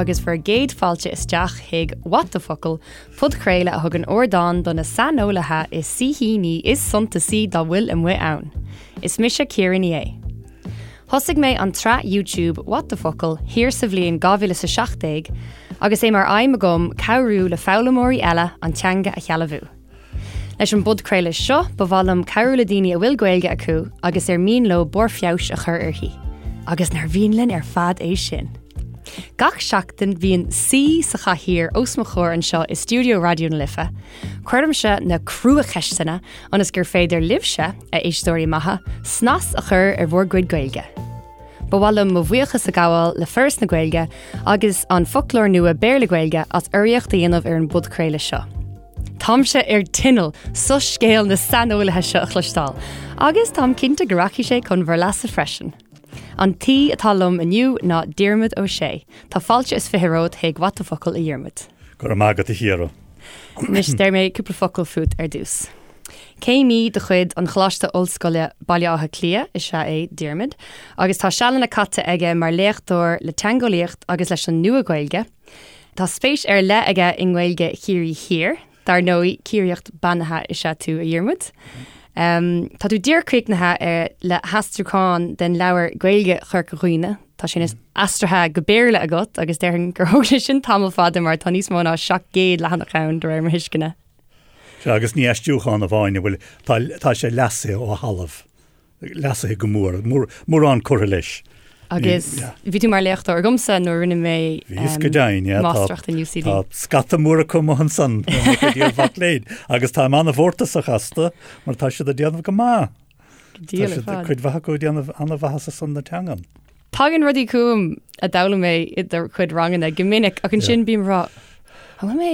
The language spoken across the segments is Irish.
agus bhur gcéad fáilte isteach chuig What the Focal, podchraoladh a thugann ardán do na saineolaithe is saoithíní is suntasaí dá bhfuil amuigh ann. Is mise Ciara Ní É. Thosaigh mé an tsraith YouTube What the Focal thiar sa bhliain 2017 agus é mar aidhm agam cabhrú le foghlaimeoirí eile an teanga a shealbhú. Leis an bpodchraoladh seo, ba mhaith liom cabhrú le daoine a bhfuil Gaeilge acu agus ar mian leo barr feabhais a chur uirthi. Agus nár mhian linn ar fad é sin? Gach seachtain bíonn saoi sa chathaoir os mo chomhair anseo i stiúideo Raidió na Life. Cuirimse na cruacheisteanna ionas gur féidir libhse, a éisteoirí maithe, snas a chur ar bhur gcuid Gaeilge. Ba mhaith liom mo bhuíochas a ghabháil le Foras na Gaeilge agus an Foclóir Nua Béarla-Gaeilge as urraíocht a dhéanamh ar an bpodchraoladh seo. Táimse ar tinneall soiscéal na saineolaithe seo a chloisteáil, agus táim cinnte go rachaidh sé chun bhur leasa freisin. An t-aoi atá liom inniu ná Diarmuid Ó Sé. Tá fáilte is 20 romhat chuig What the Focal, a Dhiarmuid. Go raibh maith agat, a Chiara. Anois, déarfaidh mé cúpla focal fút ar dtús. Céimí de chuid an Choláiste Ollscoile Baile Átha Cliath is ea é Diarmuid, agus tá sealanna caite aige mar léachtóir le teangeolaíocht agus leis an Nua-Ghaeilge. Tá spéis ar leith aige i nGaeilge Chiarraí Thiar. Dar ndóigh, Ciarraíoch beannaithe is ea tú, a Dhiarmuid. Tá tú díreach críochnaithe le haistriúchán den leabhar Gaeilge Chorca Dhuibhne. Tá sé anois aistrithe go Béarla agat agus déarfainn gur thóg sé sin tamall fada mar tá níos mó ná 700 leathanach ann, de réir mo thuisceana. Sea, agus ní aistriúchán amháin a bhfuil, tá sé leasaithe ó thalamh. leasaithe go mór, mórán curtha leis. Agus bhí tú mar léachtóir agamsa nuair a rinne mé Bhíos go deimhin, yeah. máistreacht in UCD. Tá scata mór acu amuigh ansan, mo chuid iar-mhac léinn, agus táim an-mhórtasach astu mar tá siad ag déanamh go maith. Go diail ar fad. Cuid mhaith acu ag déanamh an-mhaitheasa ar son na teangan. Tagann rudaí chugam a d'fhoghlaim mé i do chuid ranganna go minic ach ansin bím ag rá, an bhfuil mé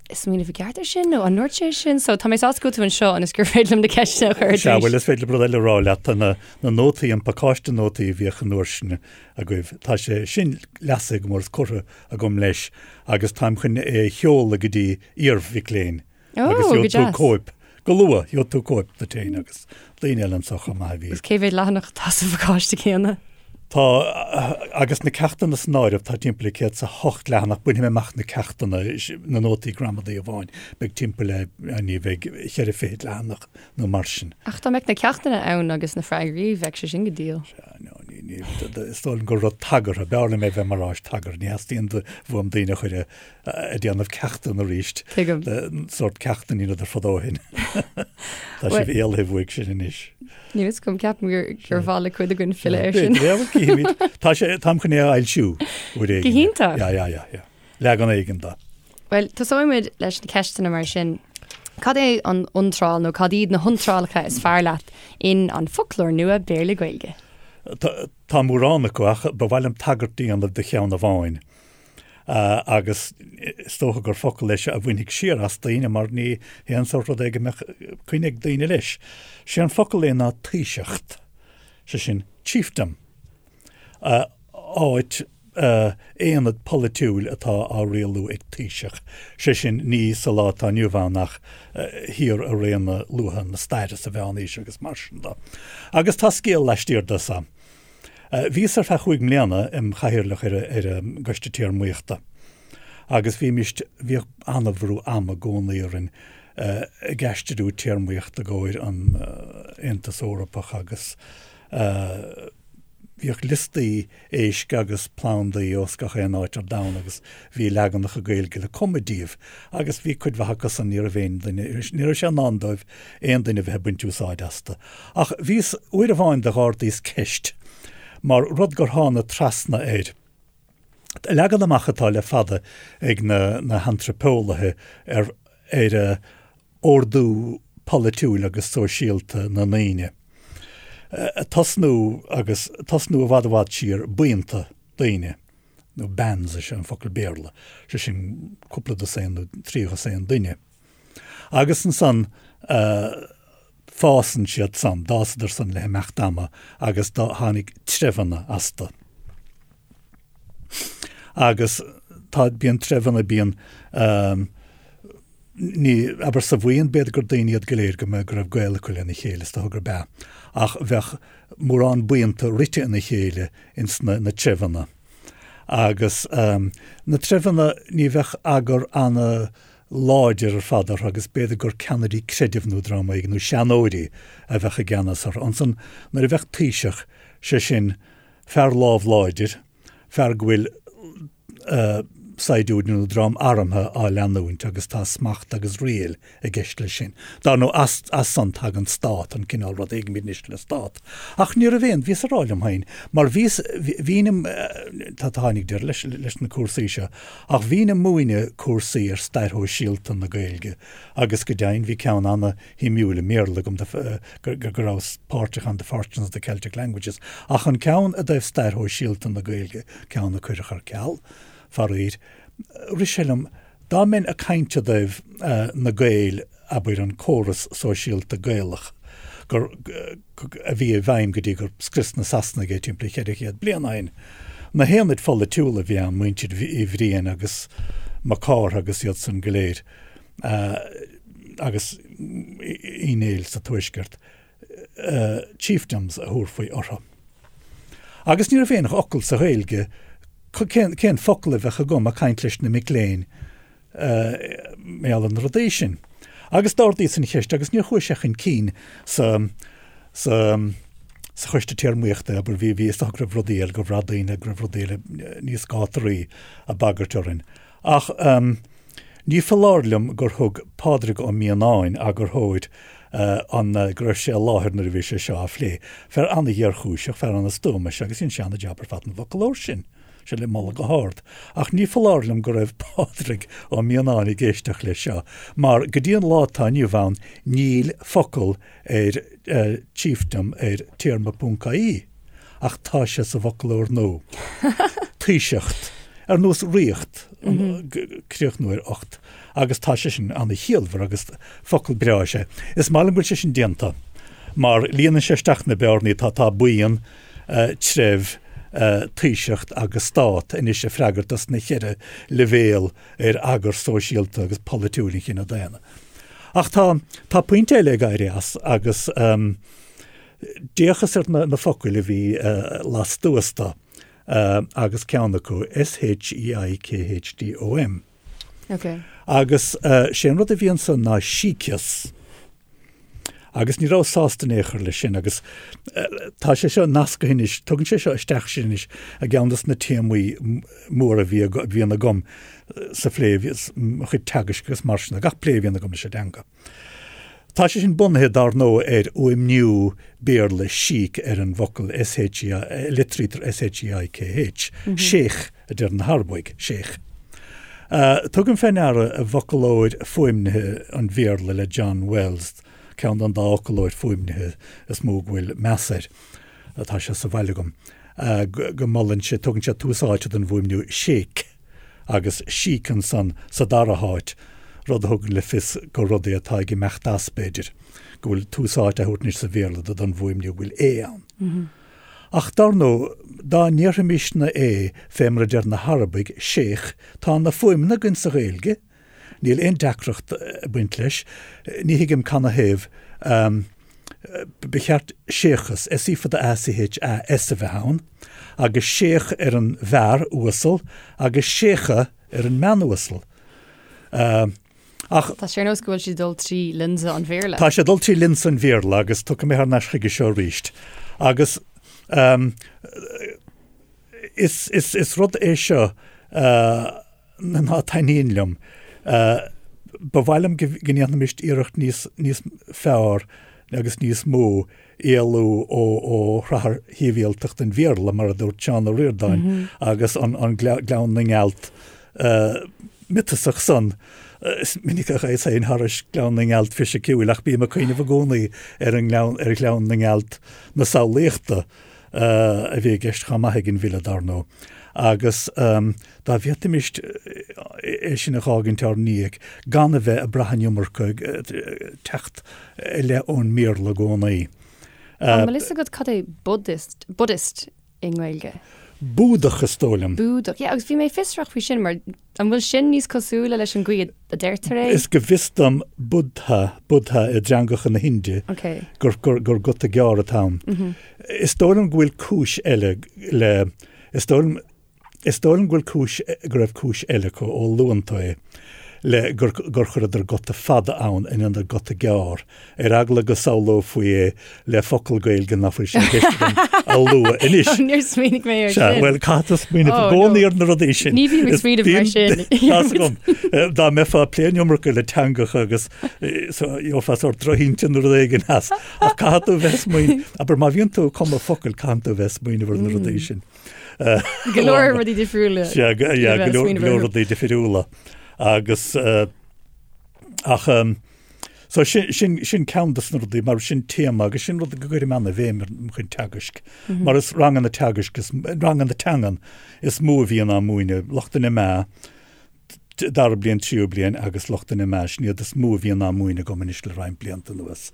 ag smaoineamh i gceart ar sin nó an ndúirt sé sin? So tá mé sásta go bhfuil tú anseo ionas gur féidir liom na ceisteanna a chur ar Sea, bhuel is féidir rud eile a rá leat, tá na na nótaí, an pacáiste nótaí a bhíodh an uair sin agaibh, tá sé sin leasaithe go mór is curtha agam leis agus táim chun é a sheoladh go dtí iar-mhic léinn Ó, agus go gheobhaidh tú deas. cóip go luath, gheobhaidh tú cóip duit féin agus daoine eile anseo chomh maith a bhí. Agus cé mhéad leathanach atá sa phacáiste céanna? Tá, agus na ceachtanna san áireamh, tá timpeall le 108 leathanach, bainfidh mé amach na ceachtanna, na nótaí gramadaí amháin, beidh timpeall le, ní bheidh, cheithre fichid leathanach nó mar sin. Ach dá mbeadh na ceachtanna ann agus na freagraí, bheadh sé sin go diail. Sea, no, ní, ní, is dóigh liom gur rud tagartha, b'fhearr liom é bheith mar áis tagartha, ní theastaíonn uaim daoine a chur ag déanamh ceachtanna arís. Tuigim. Sórt ceachtanna a dheineadar fadó ó shin. Tá sibh éalaithe uaidh sin anois. Níl fhios agam, ceapaim gur gur mhaith le cuid againn filleadh air sin. B'fhéidir, cífimid. Tá sé, táim chun é a fhoilsiú uair éigin. Go hiontach! Yeah, yeah, yeah, yeah. Leagan éigin de. Bhuel, tosóidh muid leis na ceisteanna mar sin. Cad é an iontráil nó cad iad na hiontrálacha is fearr leat in An Foclóir Nua Béarla-Gaeilge? Tá mórán acu ach ba mhaith liom tagairt a dhéanamh do cheann amháin. Agus is dócha gur focal é seo a bhainfidh siar as daoine mar ní haon sórt rud é go mbeadh coinne ag daoine leis. Sé an focal é ná taoiseacht, sé sin chiefdom, áit, aonad polaitiúil atá á rialú ag taoiseach, sé sin ní sa lá atá inniu ann ach thiar i réanna luatha na staire sa Mheánaois agus mar sin de. Agus tá scéal laistiar de so. Bhíos ar feadh chúig mbliana im chathaoirleach ar an gCoiste Téarmaíochta agus bhímist, bhíodh an-bhrú ama i gcónaí orainn ag aistriú téarmaíocht i gcomhair an Aontas Eorpach agus bhíodh liostaí éisc agus plandaí ós gach aon áit ar domhan agus bhí leaganacha Gaeilge le cumadh díobh agus bhí cuid mhaith acu san, ní raibh aon duine, ní raibh sé i ndán dóibh aon duine a bheith ag baint úsáid astu. Ach bhíos, uair amháin d'ardaíos ceist, mar rud gur thána trasna air. Leagan amach atá le fada ag na na hantraipeolaithe ar ar ordú polaitiúil agus sóisialta na ndaoine. Tosnú agus tosnú i bhfad i bhfad siar, buíonta daoine, nó bands is ea an focal Béarla, sé sin cúpla dosaen nó 3 dhosaen duine. Agus ansan fásann siad san, d'fhásadar san le himeacht ama agus do tháinig treibheanna astu. Agus tá, bíonn treibheanna, bíonn, ní, abair sa bhuíon, b'fhéidir gur daoine iad go léir go mbeadh, go raibh gaol acu lena chéile, is dócha gurb ea, ach bheadh mórán buíonta rite ina chéile ins na, na treibheanna. Agus na treibheanna, ní bheadh eagar ana-láidir ar fad orthu agus b'fhéidir gur ceannairí creidimh nó dream éigin, nó seanóirí a bheadh i gceannas orthu. Ansan nuair a bheadh taoiseach, sé sin fear lámh láidir, fear go bhfuil saighdiúirí nó dream armtha á leanúint agus tá smacht agus riail i gceist leis sin. Dar ndóigh, as, as san tagann stát, an cineál rud a thuigimid anois le stát. Ach ní raibh aon, bhíos ag rá liom féin, mar bhíos, bhínn im, tá, tháinig deireadh leis, leis na cúrsaí seo, ach bhínn ag múineadh cúrsaí ar stair shóisialta na Gaeilge agus go deimhin bhí ceann ana-shuimiúil i mBéarla agam go, go rabhas páirteach ann, The Fortunes of the Celtic Languages, ach an ceann i dtaobh stair shóisialta na Gaeilge, ceann a cuireadh ar ceal, faraor, rith sé liom, Dá mbeinn ag caint i dtaobh na Gaeil, abair, an córas sóisialta Gaelach gur, a bhí i bhfeidhm go dtí gur scrios na Sasanaigh é timpeall 400 bliain ó shin, na haonaid pholaitiúla a bhí ann, muintir Uí Bhriain agus Mac Cártha agus iad san go léir, agus Uí Néill sa Tuaisceart, chiefdoms a thabharfaí orthu. Agus ní raibh aon fhocal sa Ghaeilge, cén focal a bheadh agam ag caint leis na mic léinn mar gheall ar na rudaí sin. Agus d'ardaíos an cheist agus níor chuaigh sé chun cinn sa sa sa choiste téarmaíochta, abair, bhí bhí is dócha go raibh rudaí eile, gur bhraith daoine go raibh rudaí eile níos gátaraí ag bagairt orainn. Ach ní foláir liom gur thug Pádraig Ó Mianáin, eagarthóir an, go raibh sé i láthair nuair a bhí sé seo á phlé. Fear an-ghéarchúiseach, fear an-stuama is ea agus dhein sé an-jab ar fad an bhfoclóir sin. Sé le moladh go hard. Ach ní foláir liom go raibh Pádraig Ó Mianáin ag éisteacht leis seo, mar go dtí an lá atá inniu ann níl focal ar chiefdom ar téarma.ie. Ach tá sé sa bhfoclóir nua. Taoiseacht. Ar nós ríocht, críochnú ar ocht. Agus tá sé sin ana-chiallmhar agus focal breá is ea. Is maith liom go bhfuil sé sin déanta mar líonann sé isteach na bearnaí atá, tá buíon, treibh, taoiseacht agus stát anois ag freagairt dos na cheithre leibhéal ar eagar sóisialta agus polaitiúil an chine daonna. Ach tá, tá pointe eile ag éirí as agus D'fhéachas ar na focail a bhí lastuas de agus ceann acu, S-H-E-I-K-H-D-O-M. Agus sé an rud a bhí ansan ná síceas. Agus ní rabhas sásta in aon chor leis sin agus tá sé seo nasctha anois, tugann sé seo isteach sinn anois i gceann dos na téamaí móra a bhíonn agam sa phlé, mo chuid teagaisc agus mar sin de, gach plé a bhíonn agam leis an dteanga. Tá sé sin bunaithe, dar ndóigh, ar fhuaimniú Béarla síc ar an bhfocal SHE, litrítear S-H-E-I-K-H, sheikh a deir na hArabaigh, sheikh. Tugaim fé ndeara i bhfoclóir fuaimnithe an Bhéarla le John Wells, ceann den dá fhoclóir fuaimnithe is mó go bhfuil meas air, tá sé sa bhaile agam, go molann sé, tugann sé tús áite don bhfuaimniú sheik. agus síc ansan sa dara háit, rud a thugann le fios gur rud é atá ag imeacht as, b'fhéidir, go bhfuil tús áite á thabhairt anois sa Bhéarla do don bhfuaimniú go bhfuil é ann. Ach dar ndóigh, dá ndéarfaimisne é fé mar a deir na hArabaigh, sheikh, tá na fuaimeanna againn sa Ghaeilge, níl aon deacracht ag baint leis, ní thuigim canathaobh ba cheart séachas, S E fada A C H A S, a bheith ann, agus séach ar an bhfear uasal agus séacha ar an mbean uasal. Ach. Tá sé ar nós go bhfuil sé ag dul trí lionsa an Bhéarla. Tá sé ag dul trí lionsa an Bhéarla agus tiocfaidh mé thar n-ais chuige seo arís. Agus is, is, is rud é seo ná taitníonn liom. Ba mhaith liom go ndéanfaimis iarracht níos níos fearr agus níos mó éalú ó ó shrathar shibhialtacht an Bhéarla, mar a dúirt Seán Ó Ríordáin, agus an an Gleann na nGealt miotasach san. Is minic a ghabhas féin thairis Gleann na nGealt fisiciúil ach bím ag cuimhneamh i gcónaí ar an ngleann ar Ghleann na nGealt na samhlaíochta. a bhí i gceist chomh maith ag an bhfile, dar ndóigh, agus dá bhféadfaimis é sin a dh'fhágaint ár ndiaidh, gan a bheith ag brath an iomarca ag teacht i leith ón mBéarla i gcónaí. An bhfuil fhios agat cad é Buddhist, Buddhist i nGaeilge? Búdach, is dóigh liom. Búdach, yeah, agus bhí mé fiosrach faoi sin, mar An bhfuil sin níos cosúla leis an gcaoi a deirtear é? Is go bhfios dom Buddha, Buddha i dteangacha na hInde, gur, gur, gur guta gearr atá ann. Is dóigh liom go bhfuil cúis eile le, is dóigh liom. Is dóigh liom go bhfuil cúis, go raibh cúis eile acu, ó luann tú é, le gur, gur chuireadar guta fada ann in ionad guta gearr, ar eagla go samhlófaí é le focal Gaeilge nach bhfuil sé i gceist agam a lua anois. Oh, níor smaoinigh mé air Sea, sin. bhuel, caithfidh tú smaoineamh i Oh, gcónaí no. ar na rudaí sin. Ní bhím ag Is smaoineamh mar bíonn- sin. Tá's agam. Dá mbeifeá ag plé an iomarca le teangacha agus eh, so, gheofá sórt drochintinn nó rud éigin as. Ach caithfidh tú bheith ag smaoineamh, abair má bhíonn tú ag cumadh focail, caithfidh tú bheith ag smaoineamh ar na rudaí sin. Go leor rudaí difriúla. Sea, go leor rudaí difriúla. Agus ach so sin sin sin ceann de na rudaí mar sin téama agus sin rud go gcuirim ana-bhéim ar mo chuid teagaisc. Mar is ranganna teagaisc is ranganna teangan is mó a bhíonn á múineadh, lucht an MA, dara bliain, tríú bliain agus lucht an MA, sin iad is mó a bhíonn á múineadh agam anois le roinnt blianta anuas.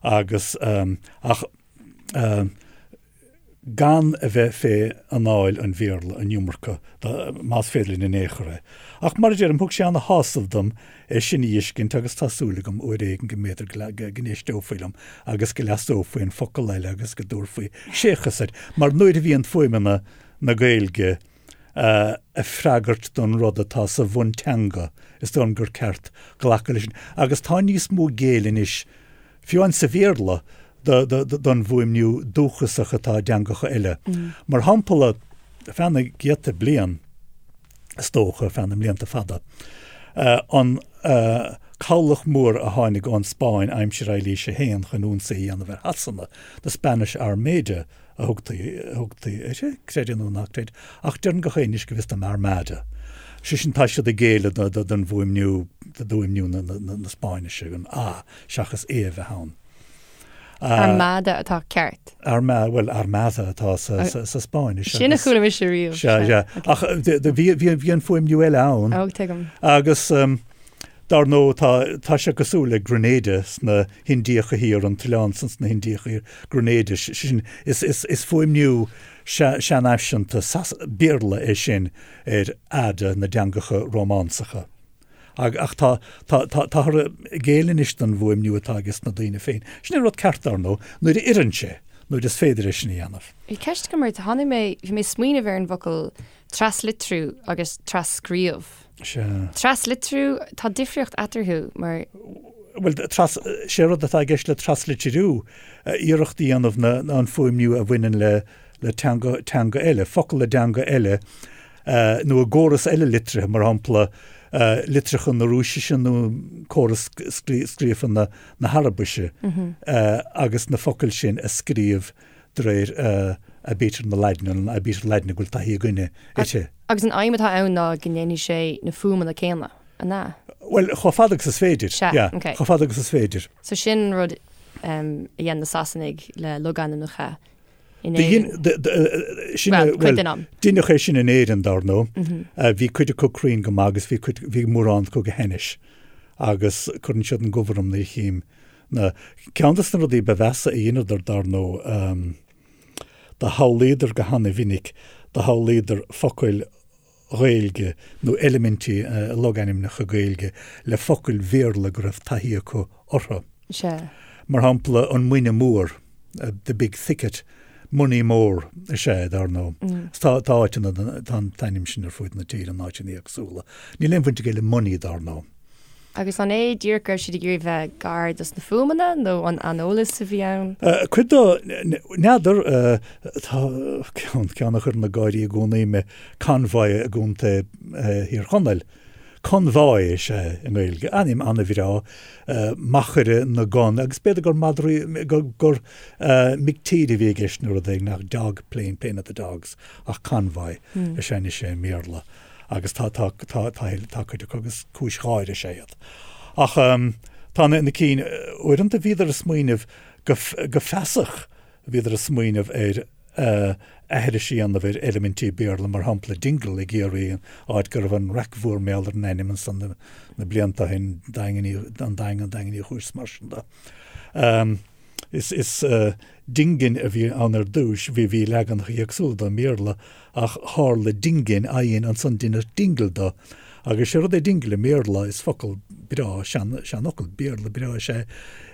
Agus ach gan a bheith fé anáil an Bhéarla an iomarca, más féidir linn in aon chor é. Ach mar a deirim, thug sé ana-shásamh dom é sin a fheiscint agus tá súil agam uair éigin go mb'fhéidir go n-éisteofaí liom agus go leasófaí an focal eile agus go dtabharfaí séchas air, mar nuair a bhíonn fuaimeanna na Gaeilge ag freagairt don rud atá sa bhunteanga, is dóigh liom gur ceart glacadh leis sin. Agus tá níos mó géilleadh anois fiú amháin sa Bhéarla, don bhfuaimniú dúchasach atá i dteangacha eile. Mar shampla, feadh na gcéadta bliain, is dócha, feadh na mblianta fada, an cabhlach mór a tháinig ón Spáinn aimsir Eilís a hAon chun ionsaí a dhéanamh ar Shasana, the Spanish Armada a thugtaí, a thugtaí uirthi, creid é nó ná creid, ach deireann gach éinne anois go bhfios dom Armada. Sé sin, tá siad ag géilleadh don bhfuaimniú, d'fhuaimniú na Spáinnise, an A seachas E a bheith ann. Armada atá ceart. Arma, bhuel, Armada atá sa Spáinnis. Sin a chuala mise riamh. Sea, sea. Ach bhí an fuaimniú eile ann. Ó, tuigim. Agus dar ndóigh tá, tá sé cosúil le Grenada sna hIndiacha Thiar, an t-oileán san sna hIndiacha Thiar, Grenada, sin, is, is, is fuaimniú seanfhaiseanta Béarla é sin ar ada na dteangacha Rómánsacha. Ach tá, tá, tá, táthar ag géilleadh anois don bhfuaimniú atá ages na daoine féin. Sin an rud ceart, dar ndóigh, nuair a oireann sé, nuair is féidir é sin a dhéanamh. Bhí ceist agam ort, tháinig mé, bhí mé ag smaoineamh ar an bhfocal traslitriú agus tras-scríobh. Sea. Traslitriú, tá difríocht eatarthu mar. Bhuel, tras, sé rud atá i gceist le traslitriú, iarracht a dhéanamh na, an fuaimniú a bhaineann le, le teanga, teanga eile, focal i dteanga eile, nó i gcóras eile litrithe, mar shampla, litreacha na Rúisise nó córas scríofa na hArabaise, agus na focail sin a scríobh de réir aibítir na Laidine, an aibítir Laidine go bhfuil taithí againne uirthi. Agus an aidhm atá ann ná go ndéanfaidh sé na fuaimeanna céanna, an ea? Bhuel, chomh fada agus is féidir, Sea, yeah, ok. chomh fada agus is féidir. So sin an rud a dhein na Sasanaigh le logainmneacha in Éirinn. Bhuel, cuid den am. Deineadh é sin in Éirinn, dar ndóigh. Bhí cuid acu cruinn go maith agus bhí cuid, bhí mórán acu go hainnis. Agus cuireann siad an gomh orm nuair a chím na. Ceann de na rudaí ba mheasa a dheineadar, dar ndóigh, do shamhlaíodar go hana-mhinic, do shamhlaíodar focail Ghaeilge nó eilimintí i logainmneacha Gaeilge le focail Bhéarla go raibh taithí acu orthu. Sea. Mar shampla, an Muine Mór, the big thicket, Moneymore is ea é, dar ndóigh. Tá tá áiteanna, tá an t-ainm sin ar fuaid na tíre in áiteanna éagsúla. Níl aon bhaint aige le money, dar ndóigh. Agus an é díreach go raibh siad ag iarraidh bheith gar dos na fuaimeanna nó an aineolas a bhí ann? Cuid dó, n'fheadar, tá ceann, ceann a chuireann ag gáirí i gcónaí mé, Convoy i gContae Thír Chonaill. Conbháigh is ea i nGaeilge, ainm an-bhreá, machaire na gcon, agus b'fhéidir gur madraí, gur, gur mic tíre a bhí i gceist nó rud éigin, ach dog plain, plain of the dogs, ach Convoy is ea anois é i mBéarla. agus tá, tá, tá, tá, tá cuid acu agus cúis gháire is ea iad. Ach tá na, na cinn, uaireanta bhíodar ag smaoineamh go, go feasach, bhíodar ag smaoineamh ar aithris a dhéanamh ar eilimintí Béarla, mar shampla Dingle i gCiarraí, áit go raibh an raic mhór mar gheall ar an ainm ansan na, na blianta ó shin, Daingean Uí, an Daingean, Daingean Uí Chúis, mar sin de. Is, is Dingin a bhí ann ar dtúis, bhí, bhí leaganacha éagsúla dó i mBéarla ach tharla Dingin, I-N, ansan deineadh Dingle do. Agus sé rud é Dingle i mBéarla, is focal breá, sean, seanfhocal Béarla breá is ea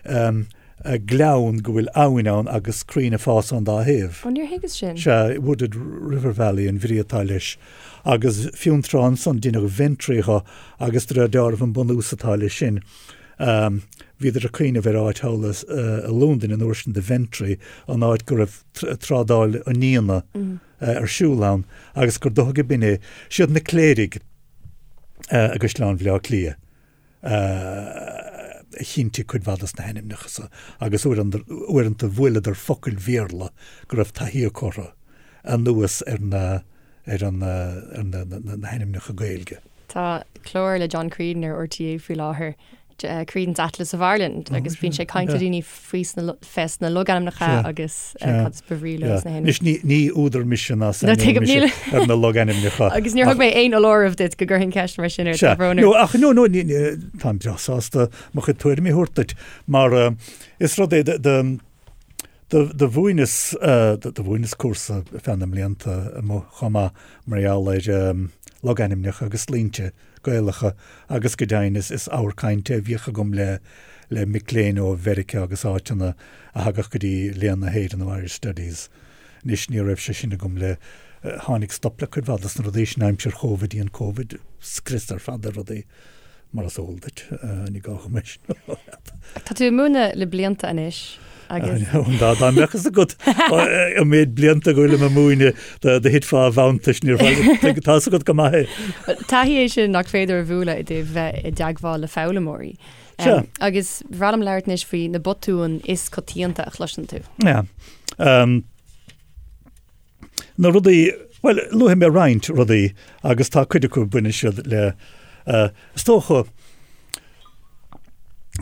é. gleann go bhfuil abhainn ann agus crainn ag fás ón dá thaobh. Ó, níor thuigeas sin. Sea, wooded river valley an bhrí atá leis. Agus fiú an tráth ansan deineadh Ventry dho agus de réir dealraimh an bunús atá leis sin, bhíodar ag cuimhneamh ar áit thall i Londain an uair sin The Ventry, an áit go raibh trádáil an fhíona ar siúl ann agus gur dócha go b'in é. Siad na cléirigh i gCaisleán Bhaile Átha Cliath a chinntigh cuid mhaith dos na hainmneacha so agus uaireanta bhuaileadar focail Bhéarla go raibh taithí acu orthu anuas ar na ar an ar na na hainmneacha Gaeilge. Tá clár le John Creedon ar RTÉ faoi láthair Creedon's Atlas of Ireland agus bíonn sé ag caint le daoine faoi fés na logainmneacha agus cad is ba bhrí leo sna hainmneacha. Anois ní ní údar mise ná saineolaí mise ar na logainmneacha. Agus níor thug mé aon fholáireamh duit go gcuirfinn ceist mar sin ort, tá brón orm. No ach no no ní táim breá sásta mo chuid tuairimí a thabhairt duit mar is rud é do do mhúineas do mhúineas cúrsa ar feadh na mblianta amuigh chomh maith mar gheall ar logainmneacha agus sloinnte Gaelacha agus go deimhin is is ábhar cainte a bhíodh agam le le mic léinn ó Mheiriceá agus áiteanna a thagadh go dtí Léann na hÉireann nó Irish Studies. Anois ní raibh sé sin agam le tháinig stop le cuid mhaith dos na rudaí sin aimsir Chóivid, dhein Covid scrios ar fad ar rudaí mar is eol duit, ní gá dom é sin a rá leat. Tá tú ag múineadh le blianta anois agus. Dá dá mbeadh fhios agat an méid blianta go bhfuilim ag múineadh do do thitfeá i bhfanntais níor tá fhios agat go maith é. Taithí é sin nach féidir a bhualadh i dtaobh bheith i dteagmháil le foghlaimeoirí. Sea. Agus ba bhreá liom labhairt anois faoi na botúin is coitianta a chloiseann tú. Yeah. Na rudaí, bhuel, luafaidh mé roinnt rudaí agus tá cuid acu baineann siad le, is dócha,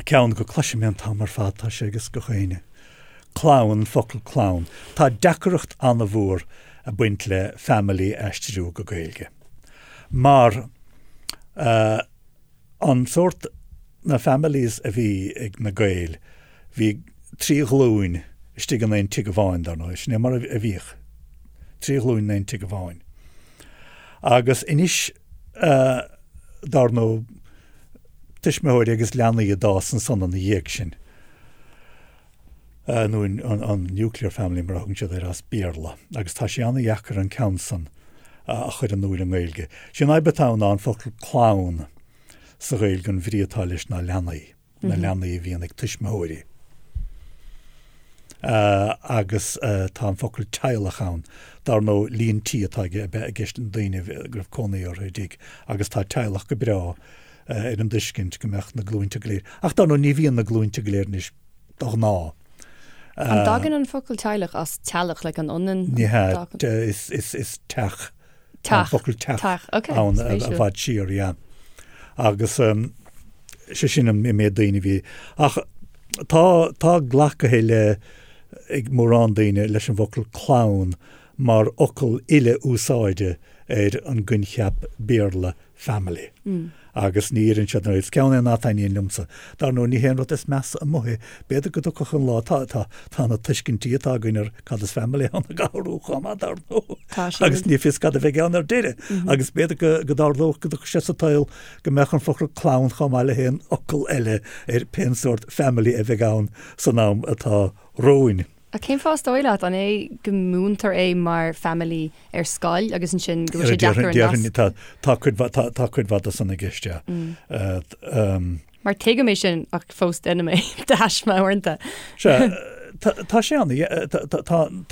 ceann go cloisim é an t-am ar fad, tá sé ag gach éinne, clann, an focal clann. Tá deacracht an-mhór ag baint le family a aistriú go Gaeilge mar an sórt, na families a bhí ag na Gaeil, bhí 3 ghlúin istigh in aon tigh amháin, dar ndóigh, sin é mar a bhíodh, 3 ghlúin in aon tigh amháin. Agus anois, dar ndóigh, tuismitheoirí agus leanaí a d'fhás ansan ina dhiaidh sin, nó an nuclear family mar a thugann siad air as Béarla, agus tá sé an-dheacair an ceann san a chur in iúl i nGaeilge. Sé an fhadhb atá ann ná an focal clann. Sa Ghaeilge an bhrí atá leis ná leanaí, na leanaí a bhíonn ag tuismitheoirí. Agus tá an focal teaghlach ann. Dar ndóigh, líon tí atá i gceist na daoine go raibh cónaí orthu i dtigh agus tá teaghlach go breá ar an dtuiscint go mbeadh na glúinte go léir. Ach dar ndóigh, ní bhíonn na glúinte go léir anois de ghnáth. An dtagann an focal teaghlach as teallach, like an ionann? Ní hea, is teach. Tá an focal teach ann i bhfad siar, yeah. Agus sé sin an méid daoine a bhí. Ach tá, tá glactha le, ag mórán daoine leis an bhfocal clann mar fhocal uile-úsáide ar an gcoincheap Béarla family. Agus ní oireann siad, is ceann é ná taitníonn liomsa. Dar ndóigh, ní hé an rud is measa amuigh é. B'fhéidir go dtiocfadh an lá, tá, tá, tá na tuiscintí atá againn ar cad is family ann ag athrú chomh maith, dar ndóigh. Tá siad. Agus ní fios cad a bheidh ann ar deireadh. Agus b'fhéidir go, go dtarlódh, go dtiocfadh sé sa tsaol go mbeadh an focal clann chomh maith le haon fhocal eile ar pén sórt family a bheidh ann san am atá romhainn. Ach cén fáth is dóigh leat? An é go múintear é mar family ar scoil agus ansin go bhfuil sé deacair an nasc? Tá cuid mhaith, tá cuid mhaith de san i gceist, yeah. Mar tuigim é sin ach fós déanaim é de thaisme uaireanta. Sea, tá sé ann,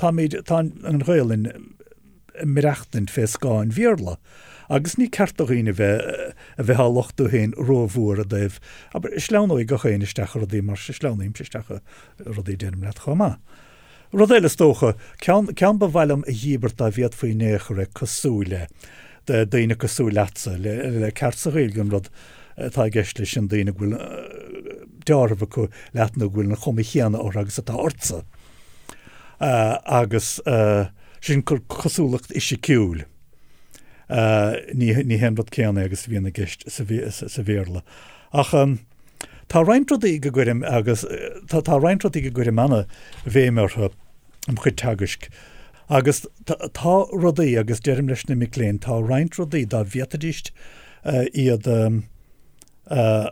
táimid, tá an Ghaelainn ag maireachtaint fé scáth an Bhéarla agus ní ceart do dhaoine bheith a bheith á lochtú féin rómhór i dtaobh, abair, sleamhnóidh gach éinne isteach i rudaí mar sleamhnaímse isteach i rudaí deirim leat chomh maith. Rud eile is dócha, ceann, ceann ba mhaith liom a dhíbirt dá bhféadfaí in aon chor é cosúil le, daoine cosúil leatsa, le, le ceart sa Ghaeilge an rud atá i gceist leis sin daoine go bhfuil deáramh acu leat nó go bhfuil an chuma chéanna orthu agus atá ortsa. Agus sin cosúlacht fhisiciúil. Ní hé an rud céanna é agus a bhíonn i gceist sa Bhéarla. Ach tá roinnt rudaí go gcuirim agus tá roinnt rudaí go gcuirim ana-bhéim orthu im chuid teagaisc. Agus tá rudaí, agus deirim leis na mic léinn, tá roinnt rudaí dá bhféadfaidís iad a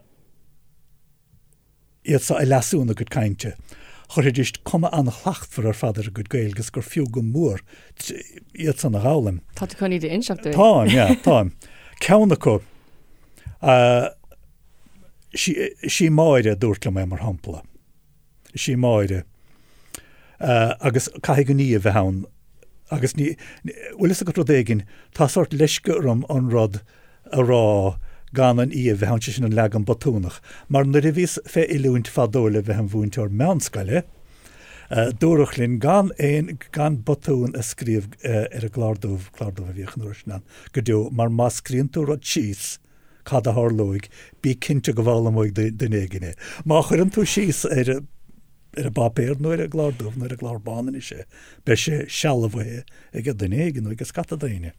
iad seo a leasú ina gcuid cainte. Chuirfidís cuma an-shlachtmhar ar fad ar a gcuid Gaeilge is gur fiú go mór iad san a dh'fhoghlaim. Tá tú chun iad a inseacht dúinn? Táim, yeah, táim. Ceann acu, sí Máire a dúirt liom é, mar shampla. Is í Máire. Agus caithfidh an í a bheith ann. Agus ní, bhfuil fhios agat rud éigin, tá sórt leisce orm an rud a rá gan an í a bheith ann, sé sin an leagan botúnach. Mar nuair a bhíos fé oiliúint fadó le bheith im mhúinteoir meánscoile, dúradh linn gan aon, gan botún a scríobh ar an gclár dubh, clár dubh a bhíodh an uair sin ann, go deo, mar má scríonn tú rud síos, cad a tharlóidh, bí cinnte go bhfoghlaimeoidh duine éigin é. Má chuireann tú síos ar ar an bpáipéar nó ar an gclár dubh nó ar an gclár bán anois é, beidh sé sealbhaithe ag duine éigin nó ag scata daoine.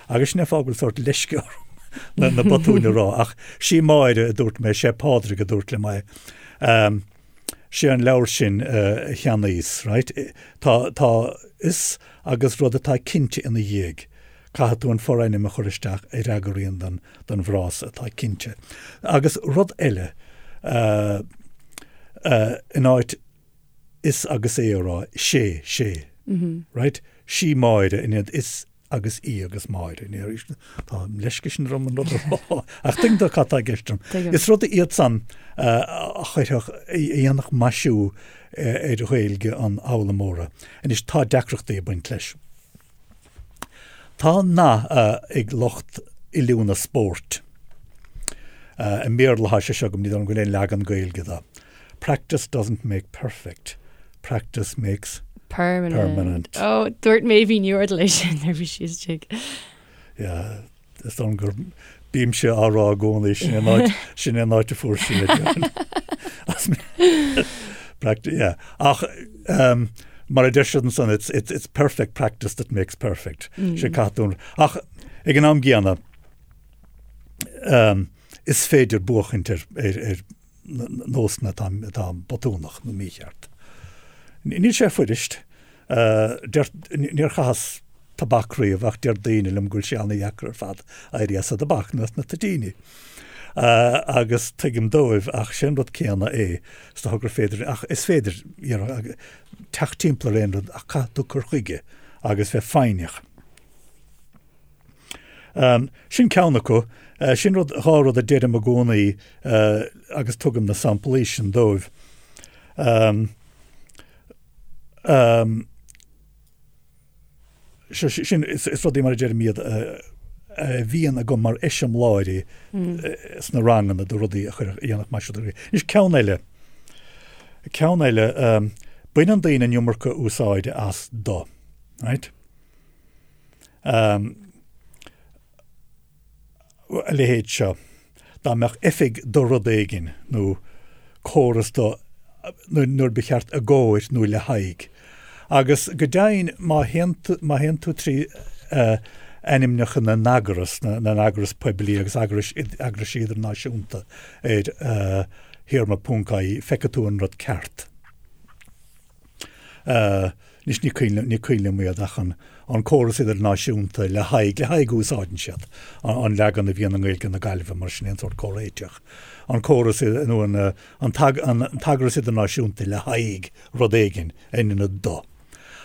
Agus sin é an fáth go bhfuil sórt leisce orm na na botúin a rá, ach sí Máire a dúirt mé, sé Pádraig a dúirt liom é. Sé an leabhar sin a cheannaíos, right? Tá tá is agus rud atá cinnte ina dhiaidh. Caithfidh tú an forainm a chur isteach a fhreagraíonn don don bhfrása atá cinnte. Agus rud eile, in áit is agus é a rá, sé, sé. Right? Sí Máire in ionad is agus í agus Máire. Tá an leisce sin orm an rud a rá. Ach tuigeann tú cad tá i gceist agam. Is rud iad san a chuirfeadh, a dhéanfadh maisiú ar Ghaeilge an fhoghlaimeora. Anois, tá deacrachtaí ag baint leis. Tá nath ag lucht oiliúna spóirt. I mBéarla atá sé seo agam, ní dóigh liom go bhfuil aon leagan Gaeilge de. Practice doesn't make perfect, practice makes permanent. permanent. Ó, dúirt Méabh Ní Fhordail é sin nuair a bhí sí istigh. Yeah, is dóigh liom gur bímse á rá i gcónaí sin é an áit, sin é an áit a fuair sí é. Practice, yeah. Ach um, mar a deir siad ansan, it's, it's, it's perfect practice that makes perfect. Mm. Sé caithfidh tú. Ach ag an am gcéanna, um, is féidir buachaint ar, ar, ar nósanna atá, atá botúnach nó mícheart. Níl sé fuirist. Deir, níor chaitheas tobac riamh ach deir daoine liom go bhfuil sé ana-dheacair ar fad éirí as an dtobac nó as na toitíní. Agus tuigim dóibh ach sé an rud céanna é, is dócha gur féidir, ach is féidir you know, teacht timpeall ar aon rud ach caithfidh tú cur chuige agus bheith foighneach. Sin ceann acu. Sin rud, dhá rud a deirim i gcónaí agus tugaim na samplaí sin dóibh. Sin, is rudaí mar a deirim iad a bhíonn agam mar eiseamláirí sna ranganna de rudaí a chuirfeadh, a dhéanfadh maisiú do. Anois ceann eile, ceann eile, baineann daoine an iomarca úsáide as do, right? A leithéid seo, dá mbeadh oifig do rud éigin nó córas do nuair ba cheart i gcomhair nó le haghaidh. Agus go deimhin má théann tú, má théann tú trí ainmneacha na n-eagras, na n-eagras poiblí agus eagrais, eagraisí idirnáisiúnta ar théarma ponc ie, feicfidh tú an rud ceart. Anois ní cuimhin ní cuimhin liom iad ach an an córas idirnáisiúnta le haghaidh le haghaidh úsáideann siad an leagan a bhíonn i nGaeilge na Gaillimhe mar sin aon sórt comhréiteach. An córas nó an an an t-eagras idirnáisiúnta le haghaidh rud éigin in ionad do.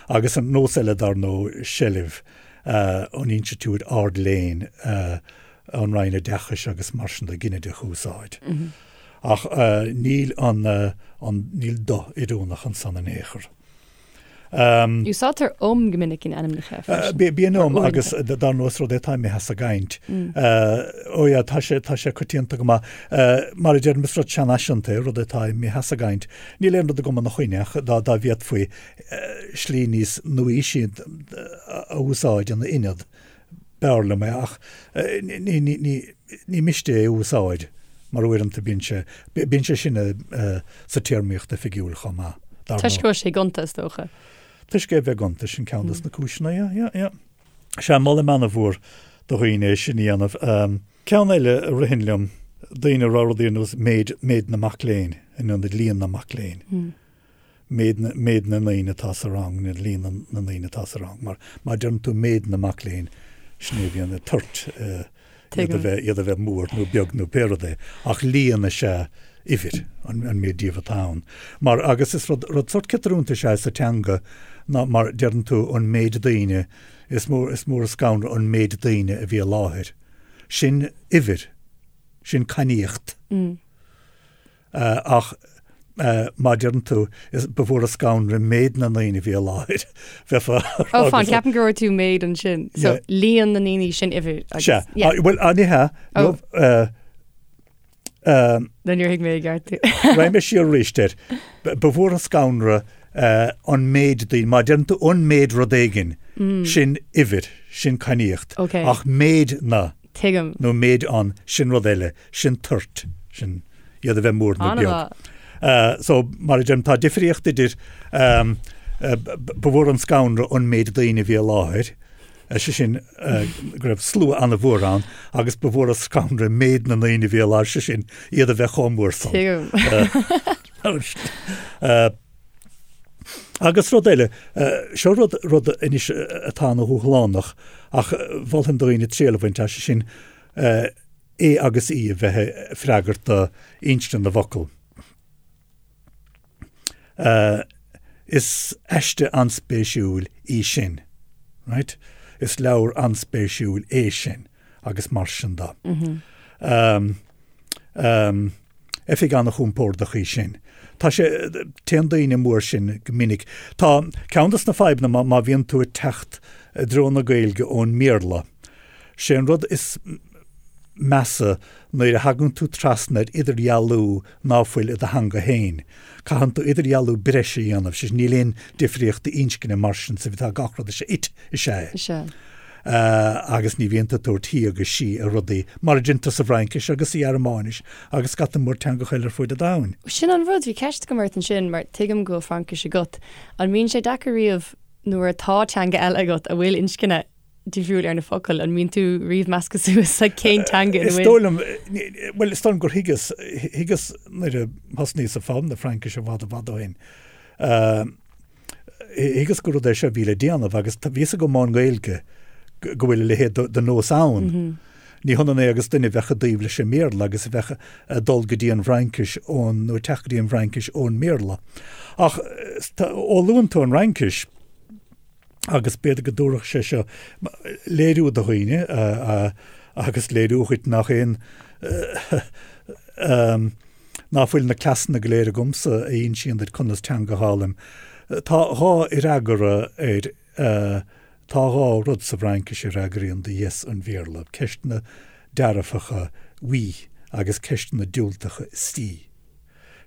Agus an nós eile dar ndóigh seilbh an institiúid ard-léinn an Roinn Oideachais agus mar sin de ginideach a úsáid. Ach níl an, an, níl do oiriúnach ansan in aon chor. Úsáidtear um go minic in ainmneacha freisin. Bíonn um agus dar ndóigh is rud é atá imithe as an gcaint. Ó yeah, tá sé, tá sé coitianta go maith. Mar a deirim, is rud seanfhaiseanta é, rud atá imithe as an gcaint. Níl aon rud agam ina choinne ach dá, dá bhféadfaí slí níos nuaaoisí a úsáid ina ionad, B'fhearr liom é ach ní miste é a úsáid mar uaireanta bíonn sé, bíonn sé sin sa téarmaíocht oifigiúil chomh maith, dar ndóigh. Toisc go bhfuil sé gonta, is dócha. Toisc é a bheith gonta, sin ceann des na cúiseanna, yeah, yeah, yeah. Sea, molaim ana-mhór do dhaoine é sin a dhéanamh. Ceann eile a ritheann liom, daoine a rá rudaí ar nós méid, méid na mac léinn in ionad líon na mac léinn. méid na, méid na ndaoine atá sa rang, nó líon na, na ndaoine atá sa rang, mar má deireann tú méid na mac léinn, sin é a bhíonn ag tabhairt. Iad a bheith, iad a bheith mór nó beag nó pé rud é, ach líon is ea uimhir, an, an méid díobh atá ann. Mar, agus is rud, rud sórt ciotrúnta is ea sa teanga ná mar deireann tú an méid daoine, is mór, is mór an scanradh an méid daoine a bhí i láthair. Sin uimhir. Sin cainníocht. Ach má deireann tú, ba mhór an scanradh méid na ndaoine a bhí i láthair, bheifeá a rá. Ó, fan, ceapaim go raibh tú méid ansin. So, líon na ndaoine sin uimhir. Sea. Bhuel, ní hea. Nó níor thuig mé i gceart tú. Raghaidh mé siar arís air. Ba mhór an scanradh an méid daoine, má deireann tú an méid rud éigin, sin uimhir, sin cainníocht. Ach méid na. Tuigim. Nó méid an, sin rud eile, sin toirt, sin iad a bheith mór nó beag. So, mar a deirim, tá difríocht idir ba mhór an scanradh an méid daoine a bhí i láthair, sé sin go raibh slua an-mhór ann, agus ba mhór an scanradh méid na ndaoine a bhí i láthair, sé sin iad a bheith chomh mór san. Tuigim. Agus rud eile, seo rud, rud anois atá ana-dhúshlánach ach mholfainn do dhaoine triail a bhaint as, sé sin é agus í a bheith ag freagairt do inscne na bhfocal. Is aiste an-spéisiúil í sin, right? Is leabhar an-spéisiúil é sin agus mar sin de. Oifig an-chompordach í sin. Tá sé, téann daoine amú air sin go minic. Tá, ceann dos na fadhbanna má, má bhíonn tú ag teacht i dtreo na Gaeilge ón mBéarla, sé an rud is measa nuair a thagann tú trasna ar idirdhealú ná fuil i do theanga féin. Caitheann tú idirdhealú breise a dhéanamh, sé sin níl aon difríocht inscne mar sin sa, tá gach rud is ea, it is ea é. Is ea. agus ní bhíonn tú ag tabhairt he agus she ar rudaí, mar a deintear sa bhFraincis agus sa Ghearmáinis agus scata mór teangacha eile ar fuaid an domhain. Sin an rud, bhí ceist agam ort ansin, mar tuigim go bhfuil Fraincis agat, an mbíonn sé deacair riamh nuair atá teanga eile agat a bhfuil inscne difriúil ar na focail, an mbíonn tú riamh measctha suas le cén teanga ina bhfuil? Is dóigh liom, bhuel, is dóigh liom gur thuigeas, thuigeas nuair a thosnaíos ag foghlaim na Fraincise i bhfad i bhfad ó shin, Thuigeas gur rud é seo a bhí le déanamh agus bhí fhios agam ón nGaeilge go bhfuil a leithéid de nós ann. Ní hionann é agus duine a bheadh i dtaobh leis an mBéarla agus a bheadh ag dul go dtí an bhFraincis ón, nó ag teacht go dtí an bhFraincis ón mBéarla. Ach ó luann tú an Fhraincis, agus b'fhéidir go dtabharfadh sé seo léiriú do dhaoine agus léiriú dhuit nach aon Ná fuil na cleasanna go léir agamsa a insíonn duit conas teanga a dh'fhoghlaim. Tá dhá fhreagra ar Tá dhá rud sa bhFraincis a fhreagraíonn do yes an Bhéarla, ceisteanna dearfacha oui agus ceisteanna diúltacha si.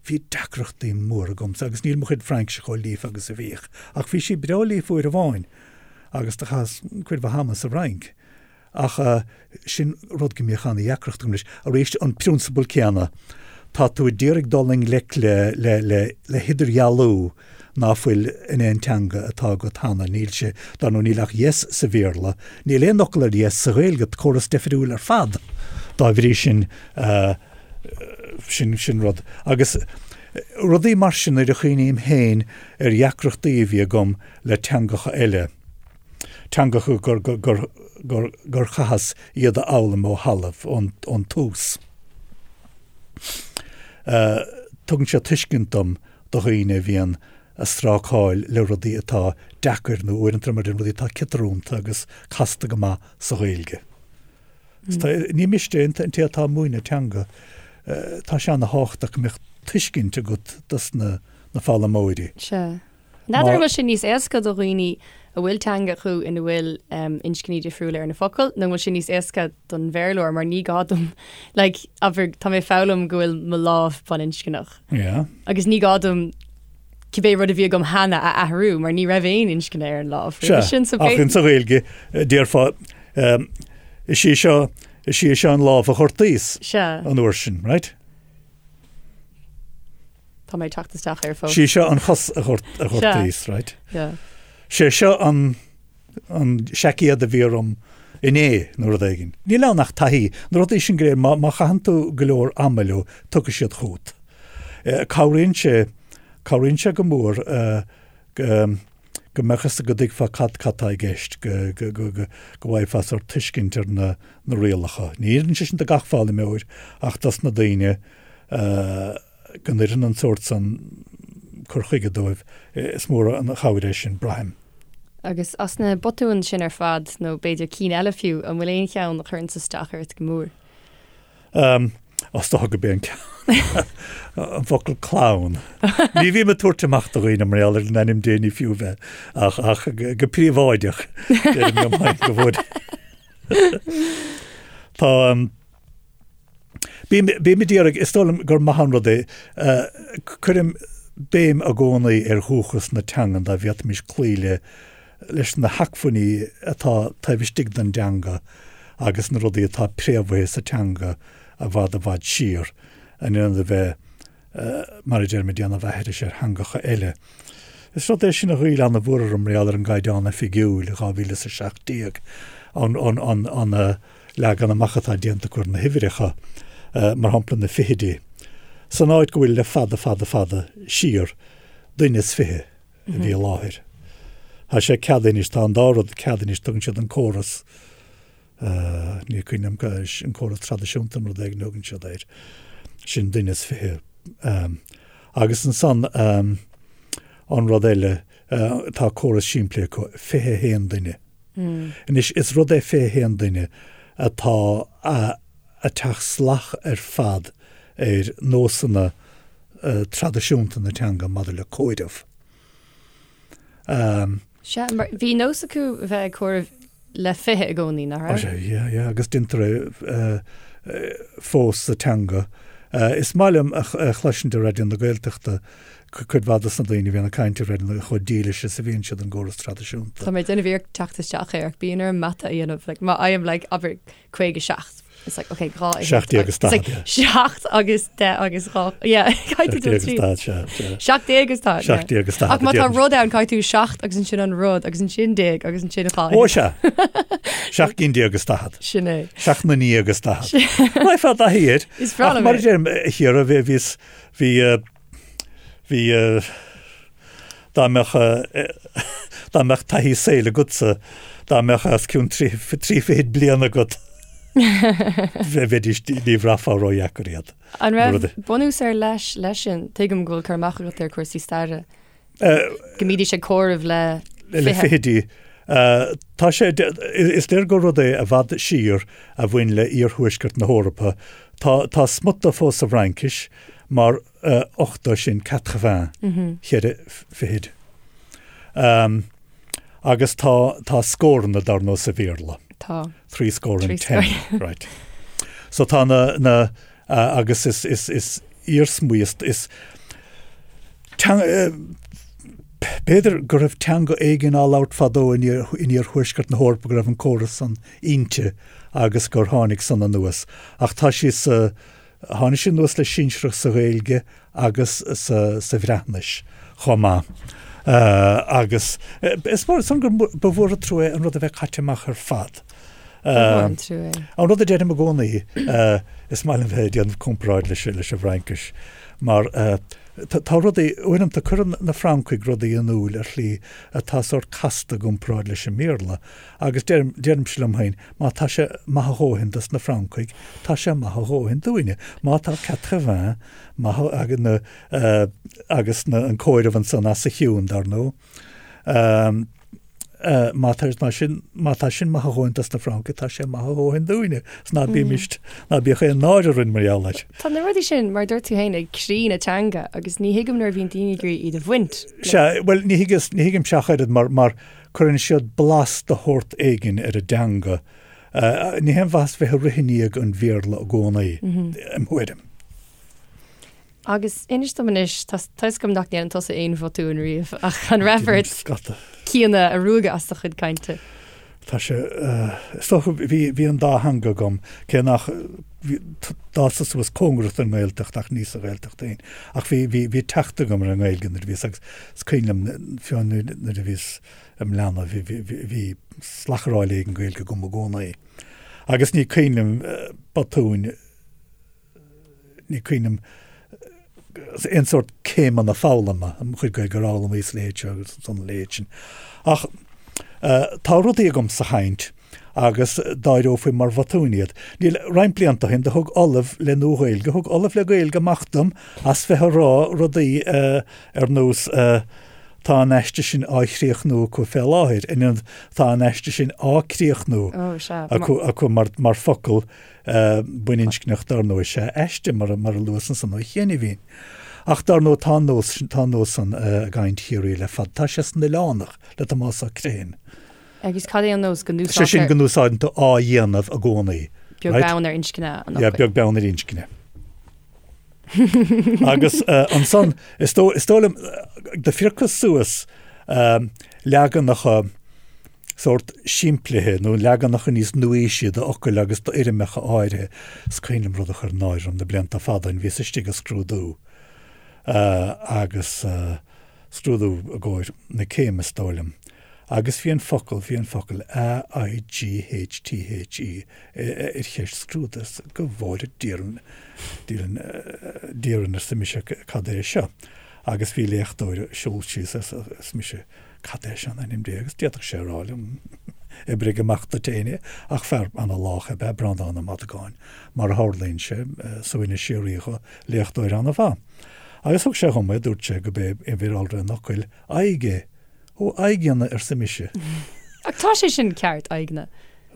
Bhí deacrachtaí móra agamsa agus níl mo chuid Fraincise chomh líofa agus a bhíodh, ach bhí sí breá líofa uair amháin agus do chaitheas cuid mhaith ama sa Fhrainc. Ach sin rud go mbíodh ana-dheacracht agam leis. Arís, an prionsabal céanna, tá tú a d'iarraidh dul i ngleic le, le, le, le hidirdhealú ná fuil in aon teanga atá agat cheana. Níl sé, dar ndóigh, níl ach yes sa Bhéarla, níl aon fhocal ar yes sa Ghaeilge, córas deifriúil ar fad dá bhrí sin, sin, sin rud. Agus rudaí mar sin nuair a chuimhním féin ar dheacrachtaí a bhí agam le teangacha eile, teangacha gur chaitheas iad a fhoghlaim ó thalamh, ón tús. Tugann sé tuiscint dom do dhaoine a bhíonn a strácáil le rudaí atá deacair nó uaireanta mar rudaí atá ciotrúnta agus casta go maith sa Ghaeilge. Ní miste an té atá ag múineadh teanga, tá sé ana-thábhachtach go mbeadh tuiscint agat dos na foghlaimeoirí. Sea. N'fheadar an bhfuil sé níos éasca do dhaoine a bhfuil teanga acu ina bhfuil inscní difriúla ar na focail nó an bhfuil sé níos éasca don Bhéarlóir mar ní gá dom like abair tá mé ag foghlaim go bhfuil mo lámh baininscneach Yeah. agus ní gá dom cibé rud a bhí agam cheana a athrú mar ní raibh aon inscne ar an lámh Sea, sin so ach insa Ghaeilge déarfá is í seo is í seo an lámh a ghortaíos Sea. an uair sin, right? Tá mé ag teacht isteach air fós. Sí seo an chos a ghortaíos, right? Yeah. Sé seo an an seaicéad a bhí orm inné nó rud éigin. Níl ann ach taithí. Na rudaí sin go léir, má má chaitheann tú go leor ama leo, tiocfaidh siad chugat. Cabhraíonn sé, cabhraíonn sé go mór go. Go mbeadh fhios go dtuigfeá cad cad tá i gceist, go go go go go bhfaighfeá sórt tuiscint ar na na rialacha. Ní oireann sé sin do gach foghlaimeoir ach dos na daoine go n-oireann an sórt san cur chuige dóibh, is mór an chabhair é sin, braithim. Agus as na botúin sin ar fad, nó b'fhéidir cinn eile fiú, an bhfuil aon cheann a chuireanns isteach ort go mór? Is dócha gurb é an ceann, an focal clann. Ní bhím ag tabhairt amach do dhaoine mar gheall air in ainm Dé ní fiú bheith ach ach go príobháideach deirim liom féin go bhfuil. Tá bím bím ag iarraidh, is dóigh liom gur maith an rud é, cuirim béim i gcónaí ar dhúchas na teangan dá bhféadfaimis cloí le leis na hacmhainní atá taobh istigh den dteanga agus na rudaí atá préamhaithe sa teanga i bhfad i bhfad siar, in ionad a bheith, mar a deirim, ag déanamh aithris ar theangacha eile. Is rud é sin a ghoill an-mhór orm mar gheall ar an gCaighdeán Oifigiúil i 2017, an an leagan amach atá déanta acu ar na huimhreacha, mar shampla na fichidí, san áit go bhfuil le fada fada fada siar, duine is fiche. a bhí i láthair. Tá sé ceadaithe anois, tá an dá rud ceadaithe anois, tugann siad an córas, ní cuimhin liom, an córas traidisiúnta nó rud éigin a thugann siad air, sin duine is fiche. Agus ansan an rud eile, tá córas simplí acu, 21 duine. Anois is rud é 21 duine atá ag teacht salach ar fad ar nósanna traidisiúnta na teanga maidir le comhaireamh. Sea, mar bhí nós acu a bheith ag comhaireamh le 20 i gcónaí, nach raibh? Sea, yeah, yeah, agus déantar é fós sa teanga. Is maith liom a chloisint ar Raidió na Gaeltachta cuid mhaith dos na daoine a bhíonn ag caint ar Raidió na chomh dílis is a bhíonn siad don gcóras traidisiúnta. Tá mé ag déanamh iarracht teacht isteach air ach bíonn orm mata a dhéanamh, like, má fhaighim, like, abair, 57. It's like, okay, 2 17 agus 40, yeah. 7 agus 10 agus 2, yeah, caithfidh tú 17 agus 40, sea, sea. 17 agus 40, yeah. 17 agus 40. Ach má tá rud ann, caithfidh tú 7 agus ansin an rud agus ansin déag agus ansin 2. Ó, sea. 17 gcinn agus 40. Sin é. 7 na ndéag agus 40. Raghfá i dtaithí air. Is breá liom é. Ach mar a deirim, a Chiara, bhí, bhíos, bhí, bhí, Dá mbeadh, dá mbeadh taithí saoil agatsa, dá mbeadh os cionn trí fichid bliain agat, bheidís, ní bhraithfeá ródheacair iad. An raibh bunús ar leith leis sin? Tuigim go bhfuil cur amach agat ar chúrsaí staire. Go mbídís ag comhaireamh le fiche. Le fichidí. Tá sé, is léir gur rud é i bhfad siar a bhain le iarthuaisceart na hEorpa. Tá, tá smut de fós sa bhFraincis mar 80 sin quatre-vingts, cheithre fichid. Agus tá, tá scóranna dar ndóigh sa Bhéarla. Tá. Three score and ten, right. So tá na, na, agus is, is, is iarsmaí, is, is teanga, b'fhéidir go raibh teanga éigin á labhairt fadó in in iarthuaisceart na hEorpa go raibh an córas san inti agus gur tháinig san anuas. Ach tá sí sa, Tháinig sé anuas le sinsearacht sa Ghaeilge agus sa Bhreatnais chomh maith. Agus is mór san gur ba mhór an trua é an rud a bheith caite amach ar fad. Ba mhór an trua é. An rud a deirim i gcónaí, is maith liom bheith ag déanamh comparáid leis an bhFraincis, mar tá rudaí, uaireanta cuireann na Francaigh rudaí in iúl ar shlí atá sórt casta i gcomparáid leis an mBéarla. Agus deirim, deirimse liom féin, má tá sé maith a dhóthain dos na Francaigh, tá sé maith a dhóthain dúinne. Má tá quatre-vingts maith ag na, agus na, an comhaireamh ansan as a chionn, dar ndóigh, má tá, má sin, má tá sin maith a dhóthain dos na Francaigh, tá sé maith a dhóthain dúinne. 'S ná bímist, ná bíodh aon náire orainn mar gheall air. Tá na rudaí sin, mar a dúirt tú féin, ag croí na teanga agus ní thuigim nuair a bhíonn daoine ag iarraidh iad a bhaint. Sea, bhuel, ní thuigeas, ní thuigimse ach oiread mar, mar, Cuireann siad blas de shórt éigin ar an dteanga. Ní haon mhaitheas bheith ag rith i ndiaidh an Bhéarla i gcónaí, im thuairim. Agus inis dom anois, tá fhios agam nach ndéanann tusa aon bhotúin riamh, ach an raibh ort cinn a ruaigeadh as do chuid cainte? Tá sé, is dócha, bhí, bhí an dá theanga agam, cé nach, bhí, d'fhásas suas cóngarach don nGaeltacht ach ní sa Ghaeltacht féin. Ach bhí, bhí, bhí teacht agam ar an nGaeilge nuair a bhíos agus is cuimhin liom, fiú nuair, nuair a bhíos im leanbh, bhí, bhí, bhí, bhí slacharáil éigin Gaeilge agam i gcónaí. Agus ní cuimhin liom botúin, ní cuimhin liom. aon sórt céimeanna foghlama, mo chuid Gaeilge a fhoghlaim is a leithéid seo agus a leithéid sin. Ach tá rudaí agam sa chaint agus d'áireofaí mar bhotúin iad. Níl, roinnt blianta ó shin do thug Ollamh le Nua-Ghaeilge, thug Ollamh le Gaeilge amach dom as bheith ag rá rudaí ar nós tá an aiste sin á chríochnú acu fé láthair, in ionad tá an aiste sin á críochnú acu acu mar focal baininscneach dar ndóigh is ea aiste mar a luas ansan ó chianaibhín. Ach dar ndóigh tá an nós tá an nós san i gcaint Chiarraí le fada. Tá sé san Oileánach le Tomás Ó Criomhthain. Agus cad é an nós go Sé sin go n-úsáideann tú á dhéanamh i gcónaí. Beag beann ar inscne an fhocail. Yeah, beag beann ar inscne. Agus ansan, is dóigh liom, do phiocas suas leaganacha sórt simplithe nó leaganacha níos nuaaoisí d'fhocail agus d'fhoirmeacha áirithe. Is cuimhin liom rud a chuir náire orm na blianta fada ó shin, bhíos istigh ag scrúdú agus scrúdú i gcomhair na céime is dóigh liom, agus bhí an focal, bhí an focal A-I-G-H-T-H-E ar cheist scrúdaithe, go bhfóire Dia orainn, Dia orainn arsa mise cad é seo? Agus bhí léachtóir ag siúl síos arsa mise cad é seo in ainm Dé agus d'fhéadfadh sé a rá liom oibrigh amach duit féin é ach fear ana-lách ab ea Breandán Ó Madagáin mar a tharlaíonn sé, suaimhneas síoraí dhó, léachtóir ana-mhaith. Agus thug sé dhom é, dúirt sé go b'é uimhir iolra an fhocail aghaidh é. Ó, aghaidheanna, arsa mise. Ach tá sé sin ceart, aghaidheanna.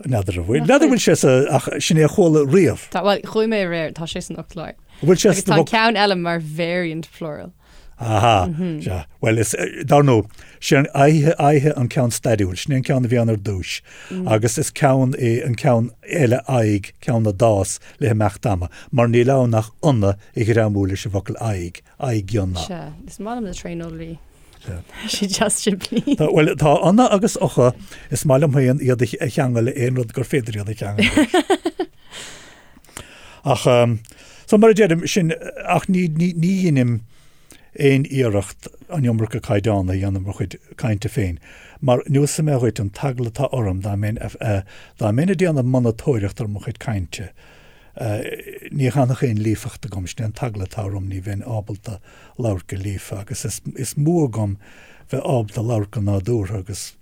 N'fheadar an bhfuil. N'fheadar an bhfuil sé sa, ach sin é a chuala riamh. Tá, bhuel, chuaigh mé aréir, tá sé san fhoclóir. An bhfuil sé Agus tá an ceann eile mar variant plural. Aha, sea. Bhuel, is, dar ndóigh, sé an aghaidhe, aghaidhe an ceann stairiúil, sin é an ceann a bhí ann ar dtúis. Agus is ceann é an ceann eile aghaidh, ceann a d'fhás le himeacht ama, mar níl ann ach onna a ghreamú leis an bhfocal aghaidh, aghaidheanna. Sea, is maith liom na tréaneolaí. Sea. Sé deas simplí. Tá, bhuel, tá onna agus ocha, is maith liom féin iad a cheangal le aon rud gur féidir iad a cheangal leis. Ach, so mar a deirim, sin, ach ní, ní, ní dheinim aon iarracht an iomarca caighdeán a dhéanamh mo chuid cainte féin, mar neosfaidh mé dhuit an t-eagla atá orm dá mbeinn, dá mbeinn ag déanamh monatóireacht ar mo chuid cainte, ní fhanfadh aon líofacht agam, sin é an t-eagla atá orm, ní bheinn ábalta labhairt go líofa agus is, is mó agam bheith ábalta labhairt go nádúrtha agus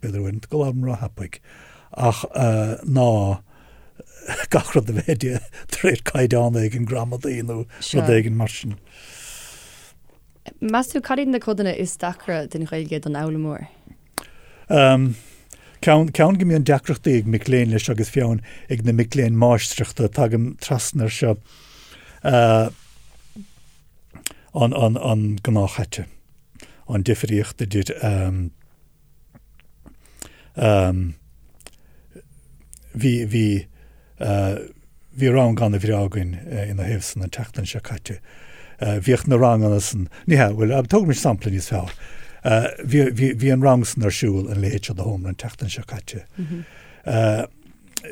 b'fhéidir uaireanta go labhraim ró-thapaidh ach ná gach rud a bheith de réir caighdeán éigin gramadaí nó rud éigin mar sin. Meas tú cad iad na codanna is deacra den Ghaeilge don fhoghlaimeoir? Ceann, ceann go mbíonn deacrachtaí ag mic léinn leis agus fiú amháin ag na mic léinn máistreachta, tagaim trasna air seo, an, an, an gnáthchaite, an difríocht idir, Bhí, bhí, bhí rang ana-bhreá againn ina thaobh san an tseachtain seo caite. Bhíodh na ranganna san, ní hea, bhuel, tógaimis sampla níos fearr. Bhí, bhí, bhí an rang san ar siúl in a leithéid seo de sheomra an tseachtain seo caite.